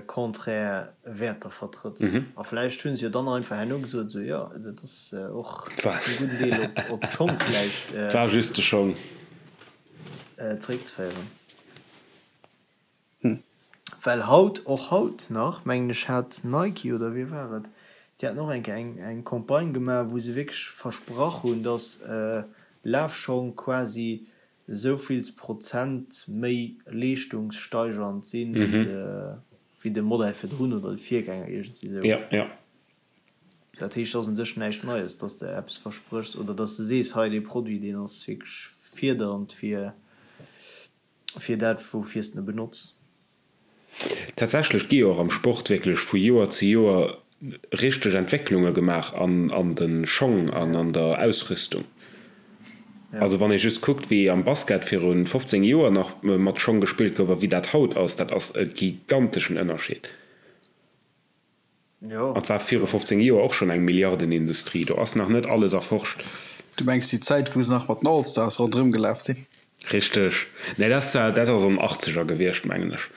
konträr Wäerter vertrëtts. A vläicht hu se jo dann einfach herno gesot, esou, jo, dat ass och zum gudden Deel op d'Schong vläicht
War just de Schong.
zeréckzeféieren. Well haut, och haut nach, mengen ech, hat Nike, oder wie war et, déi haten och eng Kéier eng eng Campagne gemaach, wou se wierklech versprach hunn, datt Lafschong quasi esouvills Prozent méi leeschtungssteigernd sinn wéi de Modell virdrun oder de Virgänger, iergendwéi esou.
Ja, ja.
Dat heescht, et ass un sech näischt Neies, dass de eppes verspréchs oder dass de sees, hei dee Produit, deen ass wierklech fierdernd fir fir dat, woufir s de e benotz.
Tatsächlech gi jo och am Sport wierklech vu Joer zu Joer richteg Entwécklunge gemaach an an de Schong an an der Ausrüstung. Also wann ee just kuckt, wéi am Basket viru 15 Joer nach mat Schong gespillt gouf a wéi dat haut ass, dat ass e giganteschen Ënnerscheed. An et war viru 15 Joer och schonn eng Milliardenindustrie. Do ass nach net alles erforscht.
Du mengs déi Zäit, wou se nach mat den All-Stars ronderëm gelaf sinn?
Richteg. Nee, dat ass zwar, dat ass an den Achtzeger gewiescht, mengen ech.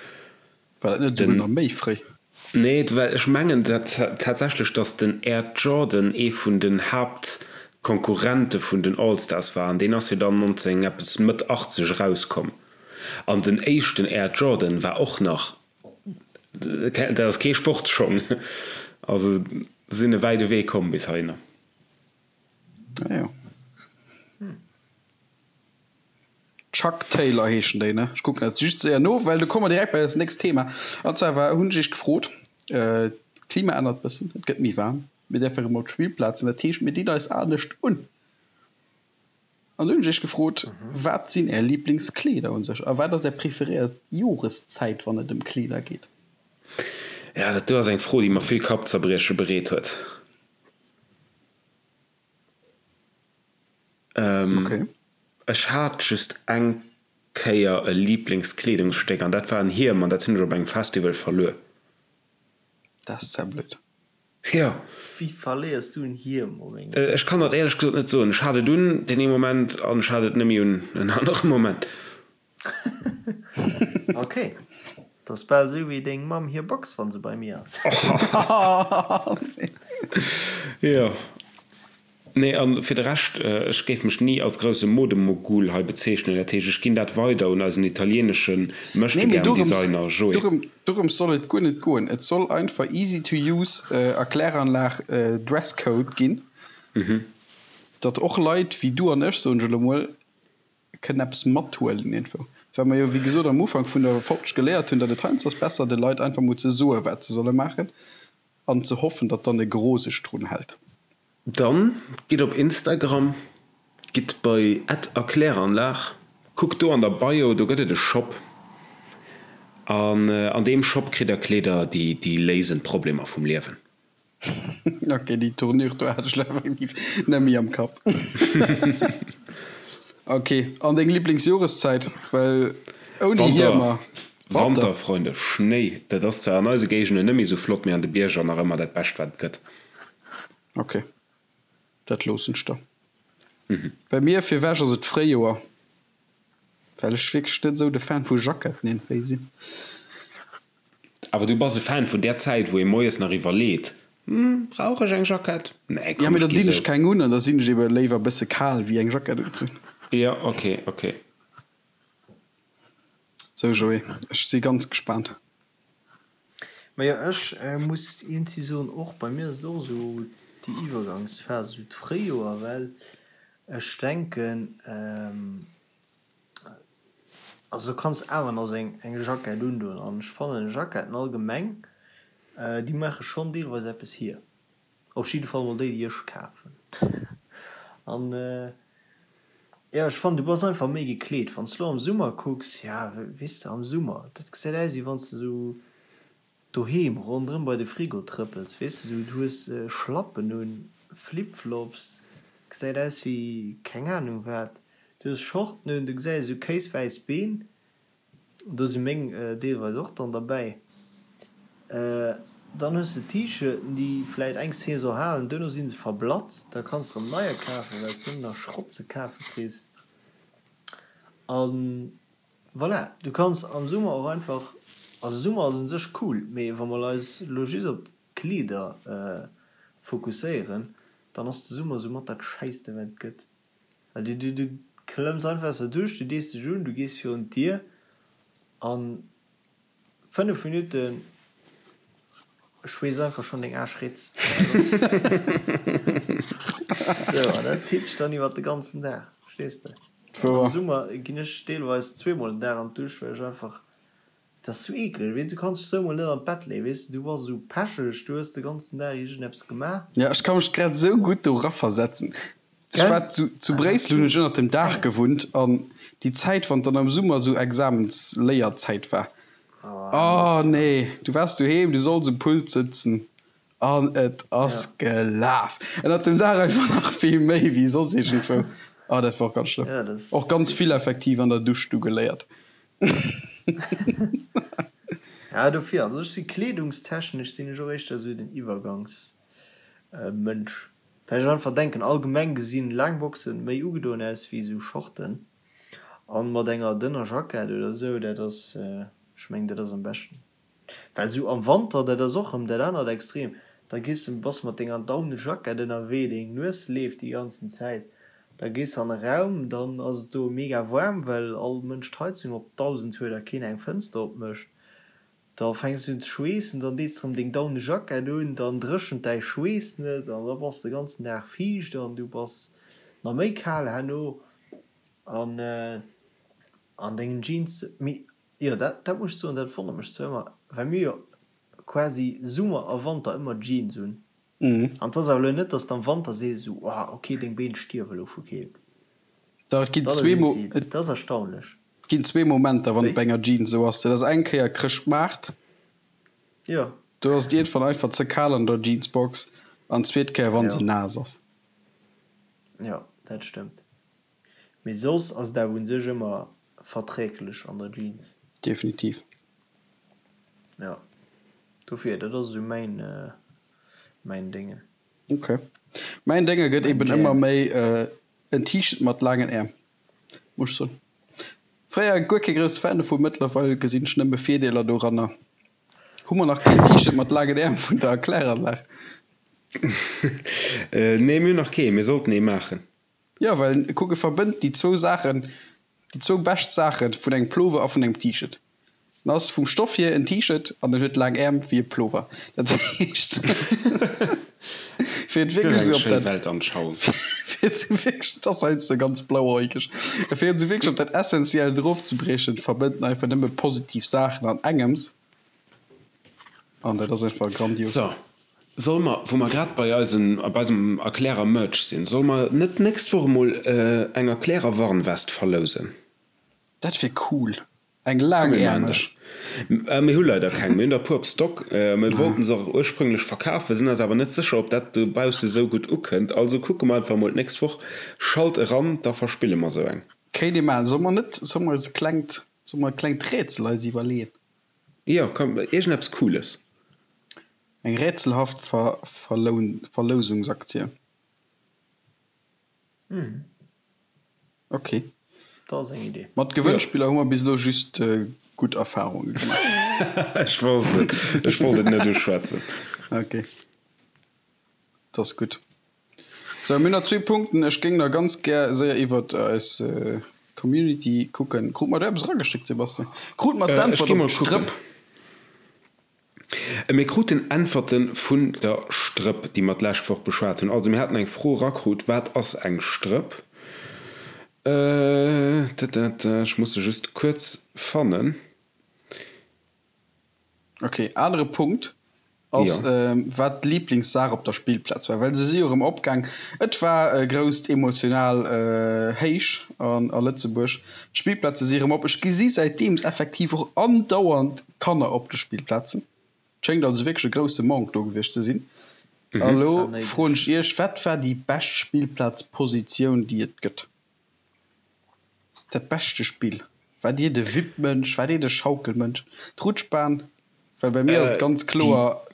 War dat net esouguer nach méi fréi?
Nee, well ech mengen tatsächlech, datt den Air Jordan ee vun den Haaptkonkurrente vun den All-Stars war. An deen ass jo dann 19 eppes, Mëtt 80 erauskomm. An den éischten Air Jordan war och nach, dat ass kee Sportsschong. Also sinn e wäide Wee komm bis heihinner.
Ah jo. Chuck Taylor heeschen déi, ne? Ech kucken dat just séier no, well do komme mer direkt bei eist nächst Thema. An zwar war, hunn ech iech gefrot, d'Klima ännert bëssen, et gëtt méi waarm, mir däerfe rëm op d'Spillplazen, dat heescht mir dinn eis anescht un. An do hunn ech iech gefrot, wat sinn är Liblingskleeder un sech a wat ass är preferéiert Joreszäit, wann et ëm Kleeder geet?
Ja, dat do ass eng Fro, déi mer vill Kappzerbrieche bereet huet. Ech hat just eng Kéier e Liblingskleedungsstéck an dat war en Hiem an dat hunn ech op engem Festival verluer.
Dat ass zwar blöd.
Jo.
Wéi verléiers du en Hiem op engem.
Ech kann dat éierlech gesot net soen. Ech hat et un deen ee Moment an ech hat et net méi un en anere Moment.
Ok, dat ass bal esou wéi deng Mamm hir Box wann se bei mir ass.
Jo. Nee, an fir de Rescht, ech géif mech ni als grousse Modemogul hei bezeechnen. Dat heescht, ech ginn dat weider un eisen italieenesche Möchtegern-Designer Joé.
Dorëms soll et guer net goen. Et soll einfach easy to use Erkläranlag Dresscode ginn, datt och Leit wéi du an ech, soen ech elo mol, kënnen eppes mathuelen iergendwou. Well mer jo wéi gesot am Ufank vun der Folg geléiert hunn, datt et heiansdo ass besser de Leit einfach mol ze soe wat se solle maachen an ze hoffen, datt dann e Gros sech drun hält.
Dann gitt op Instagram, gitt bei @erkläranlag, kuckt do an der Bio, do gëtt et e Shop an an deem Shop kritt der Kleeder déi léisen d'Problemer vum Liewen.
Ok, déi Tournure do hat ech lo effektiv net méi am Kapp. Ok, an deng Liblingsjoreszäit? Well ouni
Hiemer. Wanter. Wanter, Freunde, Schnéi, dat ass zwar an eise Géigenden net méi sou flott, mee an de Bierger nach ëmmer dat Bescht wat et gëtt.
Ok, dat loossen ech der. Bei mir virwech ass et d'Fréijoer, well ech wierklech net esou de Fan vu Jacketten iergendwéi sinn.
Awer du bass e Fan vun där Zäit, wou ee moies nach iwwerleet, Hm, brauch ech eng Jackett?
Nee, komm, ech gi sou. Ja, mee da dinn ech keng un an da sinn ech ebe léiwer e bësse kal, wéi eng Jackett unzehunn.
Jo, ok, ok.
Sou, Joé, ech si ganz gespaant.
Majo, ech muss iergendwéi soen, och bei mir ass et och esou déi Iwwergangsphas, esou d'Fréijoer, well ech denken, Also du kanns awer nach sou eng Jackett undoen an ech fannen Jacketten allgemeng déi maache schonn deelweis eppes hier. Op jidde Fall mol déi déi ech kafen. An jo ech fannen du bass einfach méi gekleet. Wann s de lo am Summer kucks, ja weess de am Summer dat gesäit aus wéi wann s de sou Doheem ronderëm bei de Frigo trëppels, weess de, sou du hues Schlappen un, Flipflops, gesäit aus wéi keng Ahnung wat, du hues Shorten un, du gesäis esou kéiswäiss Been, do si meng deelweis och dann derbäi, dann hues de T-Shirten déi vläit eng Saison halen, duerno si se verblatzt, da kanns de erëm neier kafen, well s de nëmmen nach Schrott ze kafe kriss an. Voilà, du kanns am Summer och einfach, also Summer ass un sech cool, mee wa mer eis elo just op d'Kleeder fokusséieren, dann ass de Summer sou mat dat scheisste wat et gëtt. Well du du du klëmms einfach aus der Dusch, du dees dech un, du gees virun d'Dier an 5 Minutten schweess einfach schonn deng Aarsch ritz. Sou, an dat zitt sech dann iwwert de ganzen Dag, verstees de? An am Summer ginn ech deelweis zweemol den Dag an d'Dusch, well ech einfach, dat ass sou eekleg, weess du kanns dech sou emol net an d'Bett leeën, weess de, du bass esou pecheg, du hues de ganzen Dag iergendeppes gemaach.
Jo, ech ka mech grad esou gutt do raversetzen. Ech war zu, zu Bréissel hunn ech ënnert dem Daach gewunnt an déi Zäit, wann dann am Summer esou Examensléierzäit war, oh nee, du waars doheem, du solls um Pult sëtzen an et ass gelaf. Ënnert dem Daach einfach nach vill méi wéi soss iergendwou. Oh, dat war och ganz schlëmm. Och ganz vill effektiv an der Dusch du geléiert.
Ja, dofir, also ech si kleedungstechnesch sinn ech och éischter esou den Iwwergangsmënsch, well ech einfach denken, allgemeng gesinn laang Boxen méi ugedoen aus wéi esou Shorten an mat enger dënner Jackett oder esou, dat ass, ech mengen dat ass am beschten. Well sou am Wanter, dat ass och rëm dat anert Extrem, da gees de, bass mat denger Daunejackett ënnerwee, deng Nues leeft déi ganzen Zäit, da gees an e Raum, dann ass et do mega waarm, well all Mënsch d'Heizung op 1000 huet a keen eng Fënster opmécht, da fänks de un ze schweessen, dann dees de rëm deng Daunejackett un, dann dréchent däi Schweess net an da bass de ganzen Dag fiicht an du bass nach méi kal herno an an dengen Jeans. Mee Jo, dat, dat muss ech soen, dat wonnert mech zwar ëmmer, well mir jo quasi Summer a Wanter ëmmer Jeans un. An 't ass awer elo net, dass de am Wanter sees esou, oh ok, deng Been stierwe elo vu Keelt.
Dach, et ginn zwee Mo,
et. Dat ass erstaunlech.
Et ginn zwee Momenter, wann et bei enger Jeans esou ass. Dat ass eng Kéier Chrëschtmaart.
Jo.
Do ass et iergendwann einfach ze kal an der Jeansbox. An d'zweet Kéier, wann se naass ass.
Jo, dat stëmmt. Mee soss ass et awer un sech ëmmer verträglech an der Jeans.
Definitiv.
Jo, dofir, dat ass esou mäin, mäin Déngen.
Ok. Mäin Dénge gëtt eben ëmmer méi en T-Shirt mat laangen Äerm, muss ech soen. Fréier guer kee grousse Fan dovun, mëttlerweil gesinn ech nëmme Virdeeler doranner. Hu mer nach keen T-Shirt mat laangen Äerm vun der Kläranlag?
Nee, mir hunn nach keen. Mir sollten ee maachen.
Jo, well kuck, e verbënnt déi zwou Saachen, déi zwou bescht Saache vun engem Plover a vun engem T-Shirt. En ass vum Stoff hier en T-Shirt an en huet laang Äerm wéi e Plover. Dat heescht, fir et wierklech esou op dat, fir et esou wierklech, et ass heiansdo ganz blauäugeg, fir et esou wierklech op dat Essentiellt erofzebriechen, verbënnt en einfach nëmme positiv Saachen an engems an dat ass einfach grandios.
So, Solle mer, wou mer grad bei eisen, bei eisem Erklärer-Merch sinn, solle mer net d'nächst Woch emol eng Erklärer-Warnwest verlousen?
Dat wier cool. Eng laangäermeg.
Mir hu leider keng. Mir hunn der e puer op Stock. Mir wollten se och ursprünglech verkafen, sinn eis awer net sécher, ob dat dobausse sou gutt ukënnt. Also kucke mer einfach emol d'nächst Woch. Schalt eran, da verspille mer sou eng.
Kéint ee maachen. Solle mer net, solle mer eis e klengt, solle mer e klengt Rätsel eis iwwerleeën?
Jo, komm, iergendeppes Cooles.
Eng rätselhaft Verlousungsaktie. Ok.
Dat ass eng Idee.
Mat Gewënnspiller hu mer bis elo just gutt Erfarunge
gemaach. Ech wosst et. Ech wollt et net uschwätzen.
Ok. Dat ass gutt. Sou, mir hunn nach zwee Punkten. Ech géing nach ganz gär séier iwwert eis Community kucken. Krut mer do eppes erageschéckt, Sebastian? Krut mer
d'Äntwert op d'Strëpp? Mir kruten Äntwerte vun der Strëpp, déi mer d'lescht Woch beschwat hunn. Also mir haten eng Fro erakrut, Wat ass eng Strëpp? Ech muss se just kuerz fannen.
Ok, anere Punkt ass, wat d'Liiblingssaach op der Spillplaz war, well se si jo erëm opgaang. Et war e grousst emotional Héich a Lëtzebuerg. D'Spillplaze si erëm op. Ech gesi säitdeems effektiv och andauernd Kanner op de Spillplazen. Et schéngt also wierklech e grousse Manque do gewiescht ze sinn. A lo froen ech Iech, Wat war déi bescht Spillplazpositioun, déi et gëtt? Dat beschte Spill? War Dir de Wippmënsch? War Dir de Schaukelmënsch? D'Rutschbahn? Well bei mir ass et ganz kloer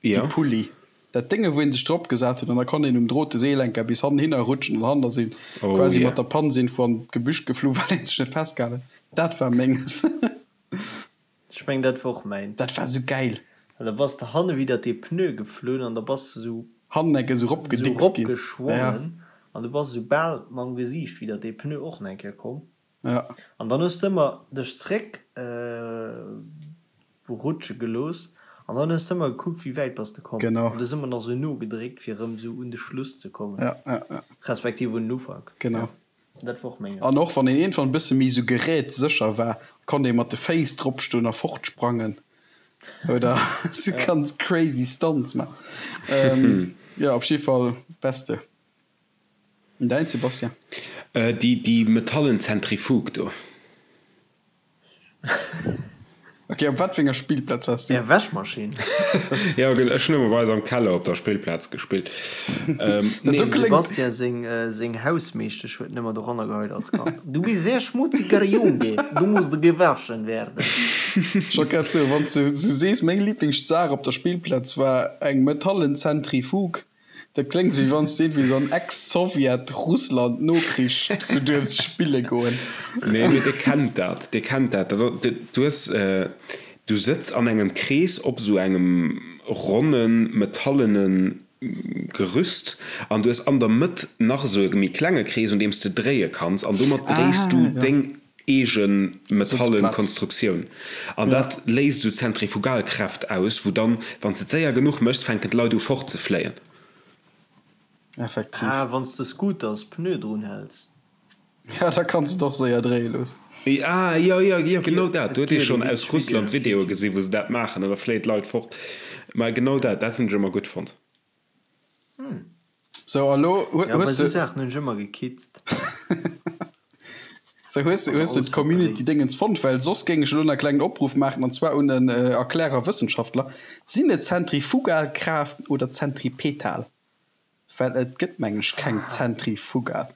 déi Pulli. Dat Dénge wou een sech drop gesat huet an da konnt een um drote Seelenker bis hannenhinner rutschen an hannen ass een quasi mat der Panz iergendwou an d'Gebüsch geflu well een sech net festgehalen huet. Dat war menges.
Ech mengen dat war och mäint.
Dat war sou gäil.
Well da bass de hanne widder dee Pneu geflunn an da bass de sou
Hannen enke sou ropgedickst ginn.
ropgeschwommen an du bass sou bal mam Gesiicht widder dee Pneu och nach eng Kéier komm.
Ja.
An dann hues de ëmmer dech zréck rutsche gelooss an dann hues de ëmmer gekuckt wéi wäit bass de komm.
Genau.
An du hues ëmmer nach sou nogedréckt fir erëm sou un de Schluss ze kommen.
Ja, ja, ja.
Respektiv un den Ufank.
Genau.
Dat war och menges.
An och wann een iergendwann e bësse méi sou gerätsécher war, konnt ee mat de Féiss dropstoen a fortsprangen oder sou ganz crazy Stunts man. Jo, op jidde Fall beste. An däin, Sebastian?
Déi, déi metallen Zentrifuge do.
Ok, op wat fir enger Spillplaz
waars du? Är Wäschmaschinn.
Jo, ech hunn ëmmer bei eis am Keller op der Spillplaz gespillt.
Nee, dem Sebastian seng, seng Hausmeeschtesch huet en ëmmer doranner geheit als Kand. Du bist sehr schmutziger Junge, du musst gewaschen werden.
Ech wollt grad soen, wann s de sou sees, meng Liblingssaach op der Spillplaz war eng metallen Zentrifuge. Dat kléngt wéi wann s de iergendwéi sou an Ex-Sowjet-Russland Nokrich sou duerfs spille goen.
Nee, mee dir kennt dat, dir kennt dat. Du hues, du sëtz an engem Krees op sou engem ronnen, metallene Gerüst an du hues an der Mëtt nach sou e méi klenge Krees, un deem s de dréie kanns an domat dréis du deng eege metallen Konstruktioun an dat léist esou Zentrifugalkräft aus, wou dann, wann s de et séier genuch méchs, fänken d'Leit u fort ze fléien.
Effektiv.
Ah, wann s de Scooters Pneu drun häls.
Ja, da kanns de et och séier dréie loossen.
Ah, jo, jo, jo, genau dat. Do huet ee schonn aus Russland Videoe gesinn, wou se dat maachen an da fléien d'Leit fort. Mä genau dat, dat hunn ech ëmmer gutt fonnt.
Sou, a lo
hues de. Ja, bei sou Saachen hunn ech ëmmer gekitzt.
Sou, hues de, hues de d'Community-Dingens fonnt? Well soss géing ech elo nach e klengen Opruff maachen, an zwar un en Erklärer Wëssenschaftler, Sinn et Zentrifugalkraaft oder Zentripetal? Well et gëtt, mengen ech, keng Zentrifugal.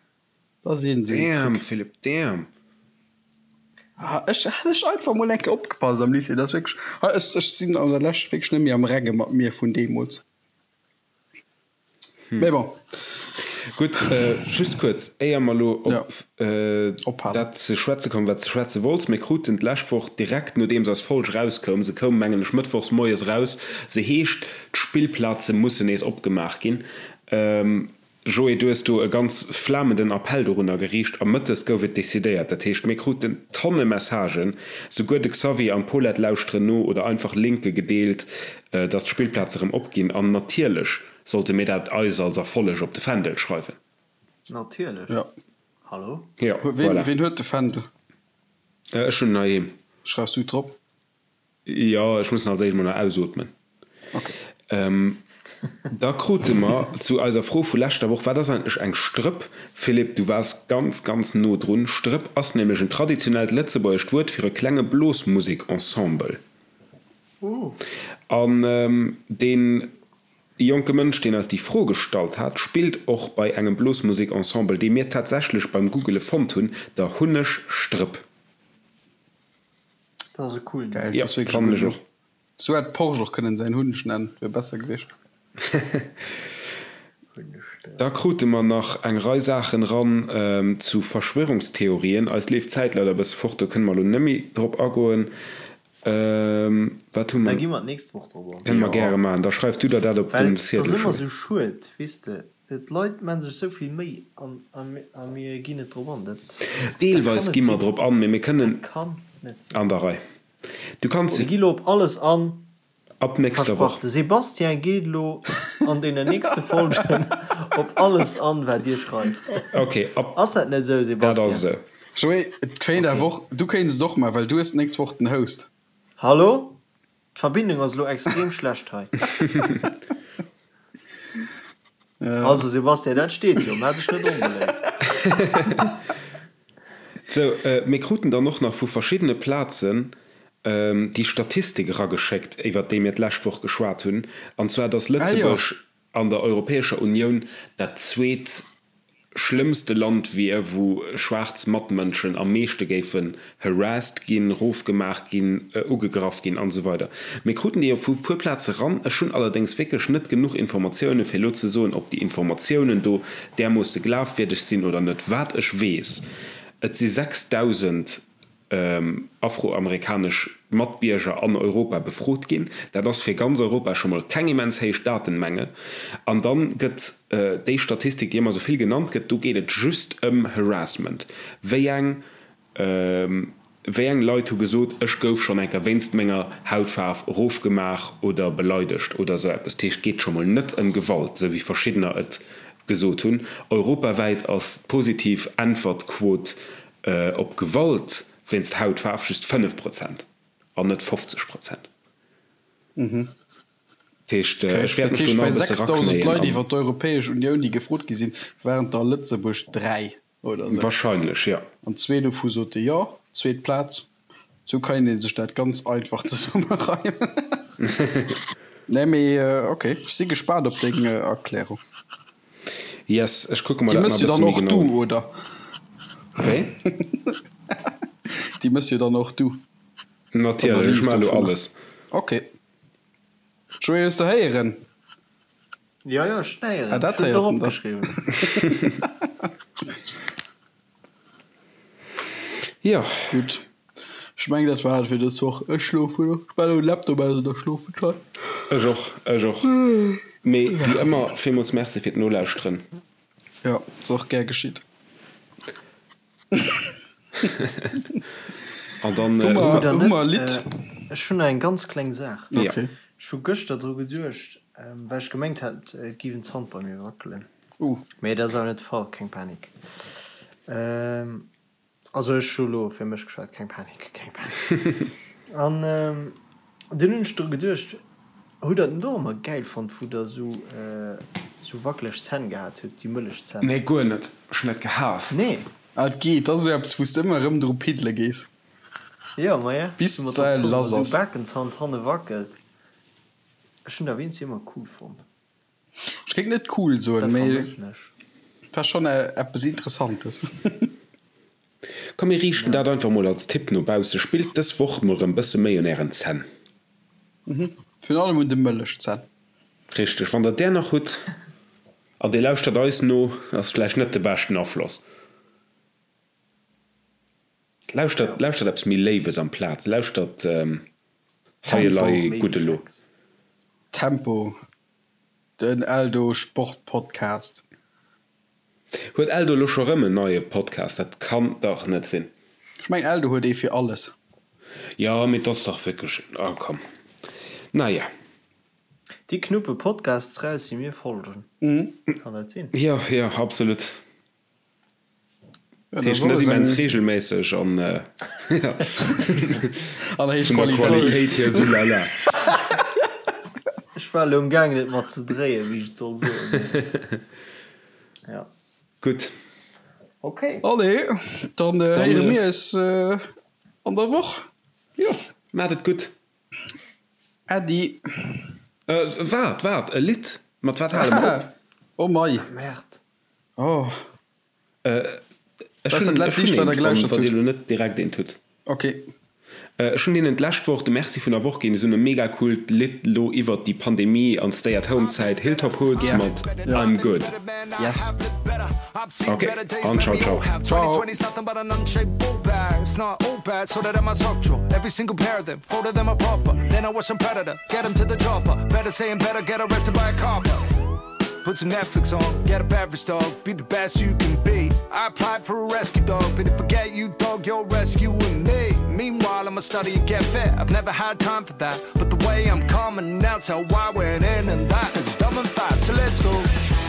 Dat ass iergend esou en
Damn, Truc. Philippe, damn!
Ah, ech hätt ech einfach mol eng Kéier opgepasst am Lycée. Dat ass wierklech, ech, ech sinn an der Lescht wierklech net méi am Renge mat mir vun deemools.
Hm.
Mee bon.
Gutt, just kuerz, éier mer elo op dat ze schwätze kommen, wat s de schwätze wollts. Mir kruten d'lescht Woch, direkt nodeems eis Folg erauskoum, se koum, mengen ech, mëttwochs moies eraus, se heescht, D'Spillplaze mussen nees opgemaach ginn. Joé, du hues do e ganz flamenden Appell dorunner geriicht a mëttes gouf et decidéiert. Dat heescht, mir kruten Tonne Messagen, souguer de Xavier an d'Paulette lauschteren no oder einfach Linke gedeelt, dass d'Spillplaze rëm opginn. An natierlech sollte mir dat eis als Erfolleg op de Fändel schreiwen.
Natierlech.
Jo.
Hallo?
Jo, voilà.
Ween huet de Fändel?
Ech hunn en heiheem.
Schreifs du drop?
Jo, ech muss en als éischt mol nach ausootmen.
Ok.
Da krute mer zu eiser Fro vu leschter Woch, Wat ass eigentlech eng Strëpp? Philippe, du waars ganz, ganz no drun. Strëpp ass nämlech en traditionellt lëtzebuergescht Wuert fir e klenge Blosmusekensemble. An dee jonke Mënsch, deen eis déi Fro gestallt hat, spillt och bei engem Blosmusekensemble, dee mir tatsächlech beim Googele fonnt hunn, der Hunneg Strëpp.
Dat ass e coolen
Numm. Geil, dat ass wierklech e gudden Numm. Sou hätt Porsche och kënnen säin Hunneg nennen, wier besser gewiescht.
Da krute mer nach eng Rei Saachen eran zu Verschwörungstheorien. Eis leeft d'Zäit leider e bësse fort, do kënne mer elo net méi drop agoen. Wat hu
mer? Da gi mer d'nächst Woch drop an.
Kënne mer gäre maachen. Da schreif du der dat op den
Ziedel. Well et ass ëmmer sou schued, weess de. D'Leit maan sech sou vill Méi a mir ginn net drop an. Dat
Deelweis gi mer drop an, mee mir kënnen.
Dat kann net
sinn. An der Rei. Du kanns.
Mir gi lo op alles an.
Ab nächster Woch.
Versprach, de Sébastien geet lo an deenen nächste Folgen op alles an, wat dir schreift.
Ok, ab.
Ass dat net esou,
Sébastien? Dat ass esou.
Joé, et kéint awer och, du kéints et och maachen, well du hues d'nächst Woch den Host.
Hallo? D'Verbindung ass elo extrem schlecht hei. Also Sébastien, dat steet jo, maach dech net onbeléift.
Sou, mir kruten dann och nach vu verschiddene Plazen déi Statistik erageschéckt, iwwert déi mir d'lescht Woch geschwat hunn, an zwar dass Lëtzebuerg an der Europäescher Unioun dat zweet schlëmmste Land wier, wou schwaarz Matmënschen am meeschte géifen harassed ginn, rofgemaach ginn, ugegraff ginn an esou weider. Mir kruten déi vu puer Plaze ran. Ech hunn allerdéngs wierklech net genuch Informatioune fir elo ze soen, ob déi Informatiounen do därmoosse glafwierdeg sinn oder net. Wat ech weess, et si 6.000 afroamerikanesch Matbierger an Europa befrot ginn. Dat ass fir ganz Europa scho mol keng immens héich Datenmenge. An dann gëtt déi Statistik, déi ëmmer esou vill genannt gëtt, do geet et just ëm Harassment. Wéi eng, wéi eng Leit hu gesot, ech gouf schonn eng Kéier wéinst menger Hautfaarf erofgemaach oder beleidegt oder esou eppes. Dat heescht, et geet scho mol net ëm Gewalt, esou wéi verschiddener et gesot hunn. Europawäit ass d'positiv Äntwertquot Op Gewalt wéinst Hautfaarf just 5 Prozent an net 50 Prozent. Dat heescht, ech wäert
mech do nach e bësse raknéien. Bei 6.000 Leit iwwer d'Europäesch Unioun, déi gefrot gi sinn, waren der a Lëtzebuerg 3 oder
esou. Wahrscheinlech, jo.
An zwee dovu sote jo, zweet Plaz. Sou kann een sech dat ganz einfach zesummereimen. Nee mee ok, ech si gespaant op deng Erklärung.
Yes, ech kucke mer
Déi
dat
mëss
nach
jo
e bësse
dann
méi
och
genau
du,
un.
oder?
Wéi?
Déi mëss jo dann och du,
Natierlech, ech
d'Analys
maache elo
dovunner.
alles.
Ok. Joé, hues de héieren?
Jo, jo, ech hunn héieren.
Ah, dat
Ech hunn et och
héiert en dann.
opgeschriwwen.
Jo.
Gutt. Ech mengen, dat war et fir dës Woch. Ech schlofen elo. Ech maachen elo den Laptop aus an da schlofen ech hei.
Ech och, ech och. Mee wéi ëmmer, villmools Merci fir d'Nolauschteren.
Jo, ass och gär geschitt.
An dann
Hu mer,
Oder
hu
net?
mer e Lidd?
Ech hunn nach eng ganz kleng Saach.
Ja.
Okay.
Ech hu gëschter dru geduecht, well ech gemengt hat, et géif en Zant bei mir wackelen.
Uh.
Mee dat ass awer net de Fall, keng Panik. Also ech hu lo fir mech geschwat, keng Panik, keng Panik. An dunn hunn ech dru geduecht, hutt der den och ëmmer gäil fonnt, wou der sou sou wackeleg Zänn gehat hutt, déi mëllech Zänn?
Nee, guer net. Ech hunn dat gehaasst.
Nee?
Ah, et geet, dat ass esou eppes, wou s de ëmmer erëm dru piddele gees.
Jo, maja,
Bis
sou mat der
d'Säil
Zong,
lass
sou
ass.
Bakenzand hanne wackelt. Ech hunn dat wéinst ëmmer cool fonnt.
Ech géing net cool soen,
Dat
mee
vermëssen ech.
war schonn eppes Interessantes.
Komm mir riichten dat einfach mol als Tipp no bausse, spillt dës Woch mol rëm bësse méi un ären Zänn.
Virun allem un de Mëllechzänn.
Richteg, wann der där nach hutt an dir lauschtert eis no, ass vläicht net de beschten Afloss. Lauschtert, lauschtert eppes méi Léiwes amplaz, lauschtert Hei elei gutt elo.
Tempo, den Eldo Sport Podcast.
Huet Eldo elo scho rëm en neie Podcast? Dat kann dach net sinn.
Ech mengen Eldo huet ee fir alles.
Jo, mee 't ass dach wierklech, ah komm. Naja.
Déi knuppe Podcasts raus, déi mir folgen. Kann dat sinn?
Jo, jo, absolut. Dat heescht net immens reegelméisseg an
an héich
vun der Qualitéit hier sou lala.
Ech war elo um gaangen et mat ze dréien, wéi ech et soll soen. Ja.
Gutt.
Ok.
Allez, dann héiere mir eis an der Woch.
Jo, maacht et gutt.
Äddi.
Waart, waart, e Lidd. Mat wat hale mer op?
Oh mei.
Merde.
Oh.
Ech hunn ech hunn eent fonnt, wann dir elo net direkt eent hutt.
Ok.
Ech hunn hinnen d'lescht Woch de Merci vun der Woch ginn. Si hunn e mega coolt Lidd lo iwwert déi Pandemie an Stay at Home Zäit, Hilltop Hoods mat I'm Good.
Yes.
Ok, an ciao ciao.
Ciao.
Put some Netflix on, get a beverage dog, be the best you can be. I applied for a rescue dog, but if I get you, dog, you're rescuing me. Meanwhile, I'ma study and get fit. I've never had time for that, but the way I'm coming now, tell why went in and that is dumb and fast. So let's go.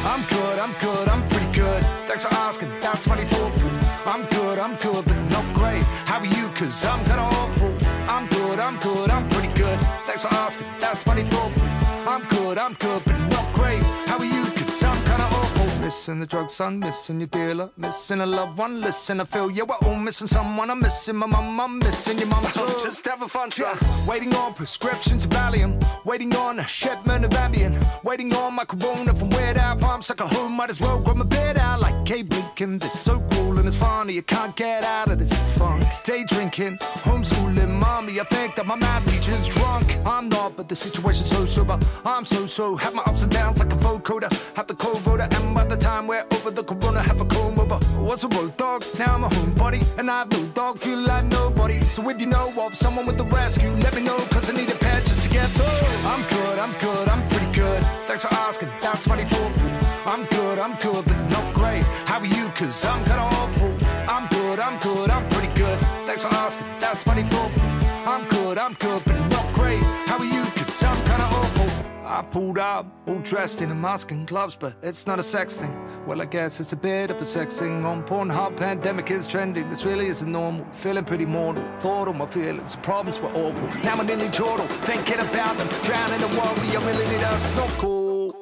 I'm good, I'm good, I'm pretty good. Thanks for asking, that's mighty thoughtful. I'm good, I'm good, but not great. How are you? Cause I'm kinda awful. I'm good, I'm good, I'm pretty good. Thanks for asking, that's mighty thoughtful. I'm good, I'm good, but not great. How are you? Cause I'm kinda awful. Missing the drugs, son, missing your dealer, missing a loved one. Listen, I feel you, we're all missing someone. I'm missing my mum, I'm missing your mum too. Just having fun, son. Waiting on prescriptions of Valium, waiting on a shipment of Ambien, waiting on my corona from Weird Al. I'm stuck at home, might as well grow my beard out like Abe Lincoln. This so cool and it's funny, you can't get out of this funk. Day drinking, homeschooling, mommy. I think that my mad teacher's drunk. I'm not, but the situation's so sober. I'm so so, have my ups and downs like a vocoder. Have the co-voter, and by the time we're over the corona, have a comb over. Was a road dog, now I'm a homebody, and I've no dog, feel like nobody. So if you know of someone with a rescue, let me know, cause I need a pair just to get through. I'm good, I'm good, I'm pretty good. Thanks for asking, that's mighty thoughtful. I'm good, I'm good, but not great. How are you? Cause I'm kinda awful. I'm good, I'm good, I'm pretty good. Thanks for asking, that's mighty thoughtful. I'm good, I'm good, but not great. How are you? Cause I'm kinda awful. I pulled up, all dressed in a mask and gloves, but it's not a sex thing. Well, I guess it's a bit of a sex thing. On Pornhub, pandemic is trending. This really isn't normal. Feeling pretty mortal. Thought all my feelings, the problems were awful. Now I'm nearly chortle, thinking about them. Drowning in worry, I really need a snorkel.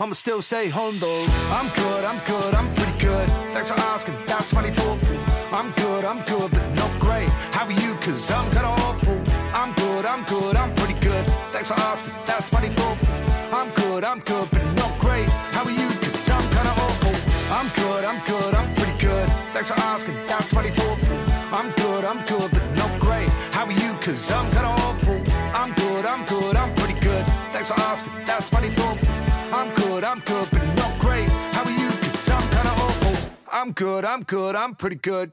I'ma still stay home though. I'm good, I'm good, I'm pretty good. Thanks for asking, that's mighty thoughtful. I'm good, I'm good, but not great. How are you? Cause I'm kinda awful. I'm good, I'm good, I'm pretty good. Thanks for asking, that's mighty thoughtful. I'm good, I'm good, but not great. How are you? Cause I'm kinda awful. I'm good, I'm good, I'm pretty good. Thanks for asking, that's mighty thoughtful. I'm good, I'm good, but not great. How are you? Cause I'm kinda awful. I'm good, I'm good, I'm pretty good. Thanks for asking, that's mighty thoughtful. I'm good, I'm good, but not great. How are you? Cause I'm kinda awful. I'm good, I'm good, I'm pretty good.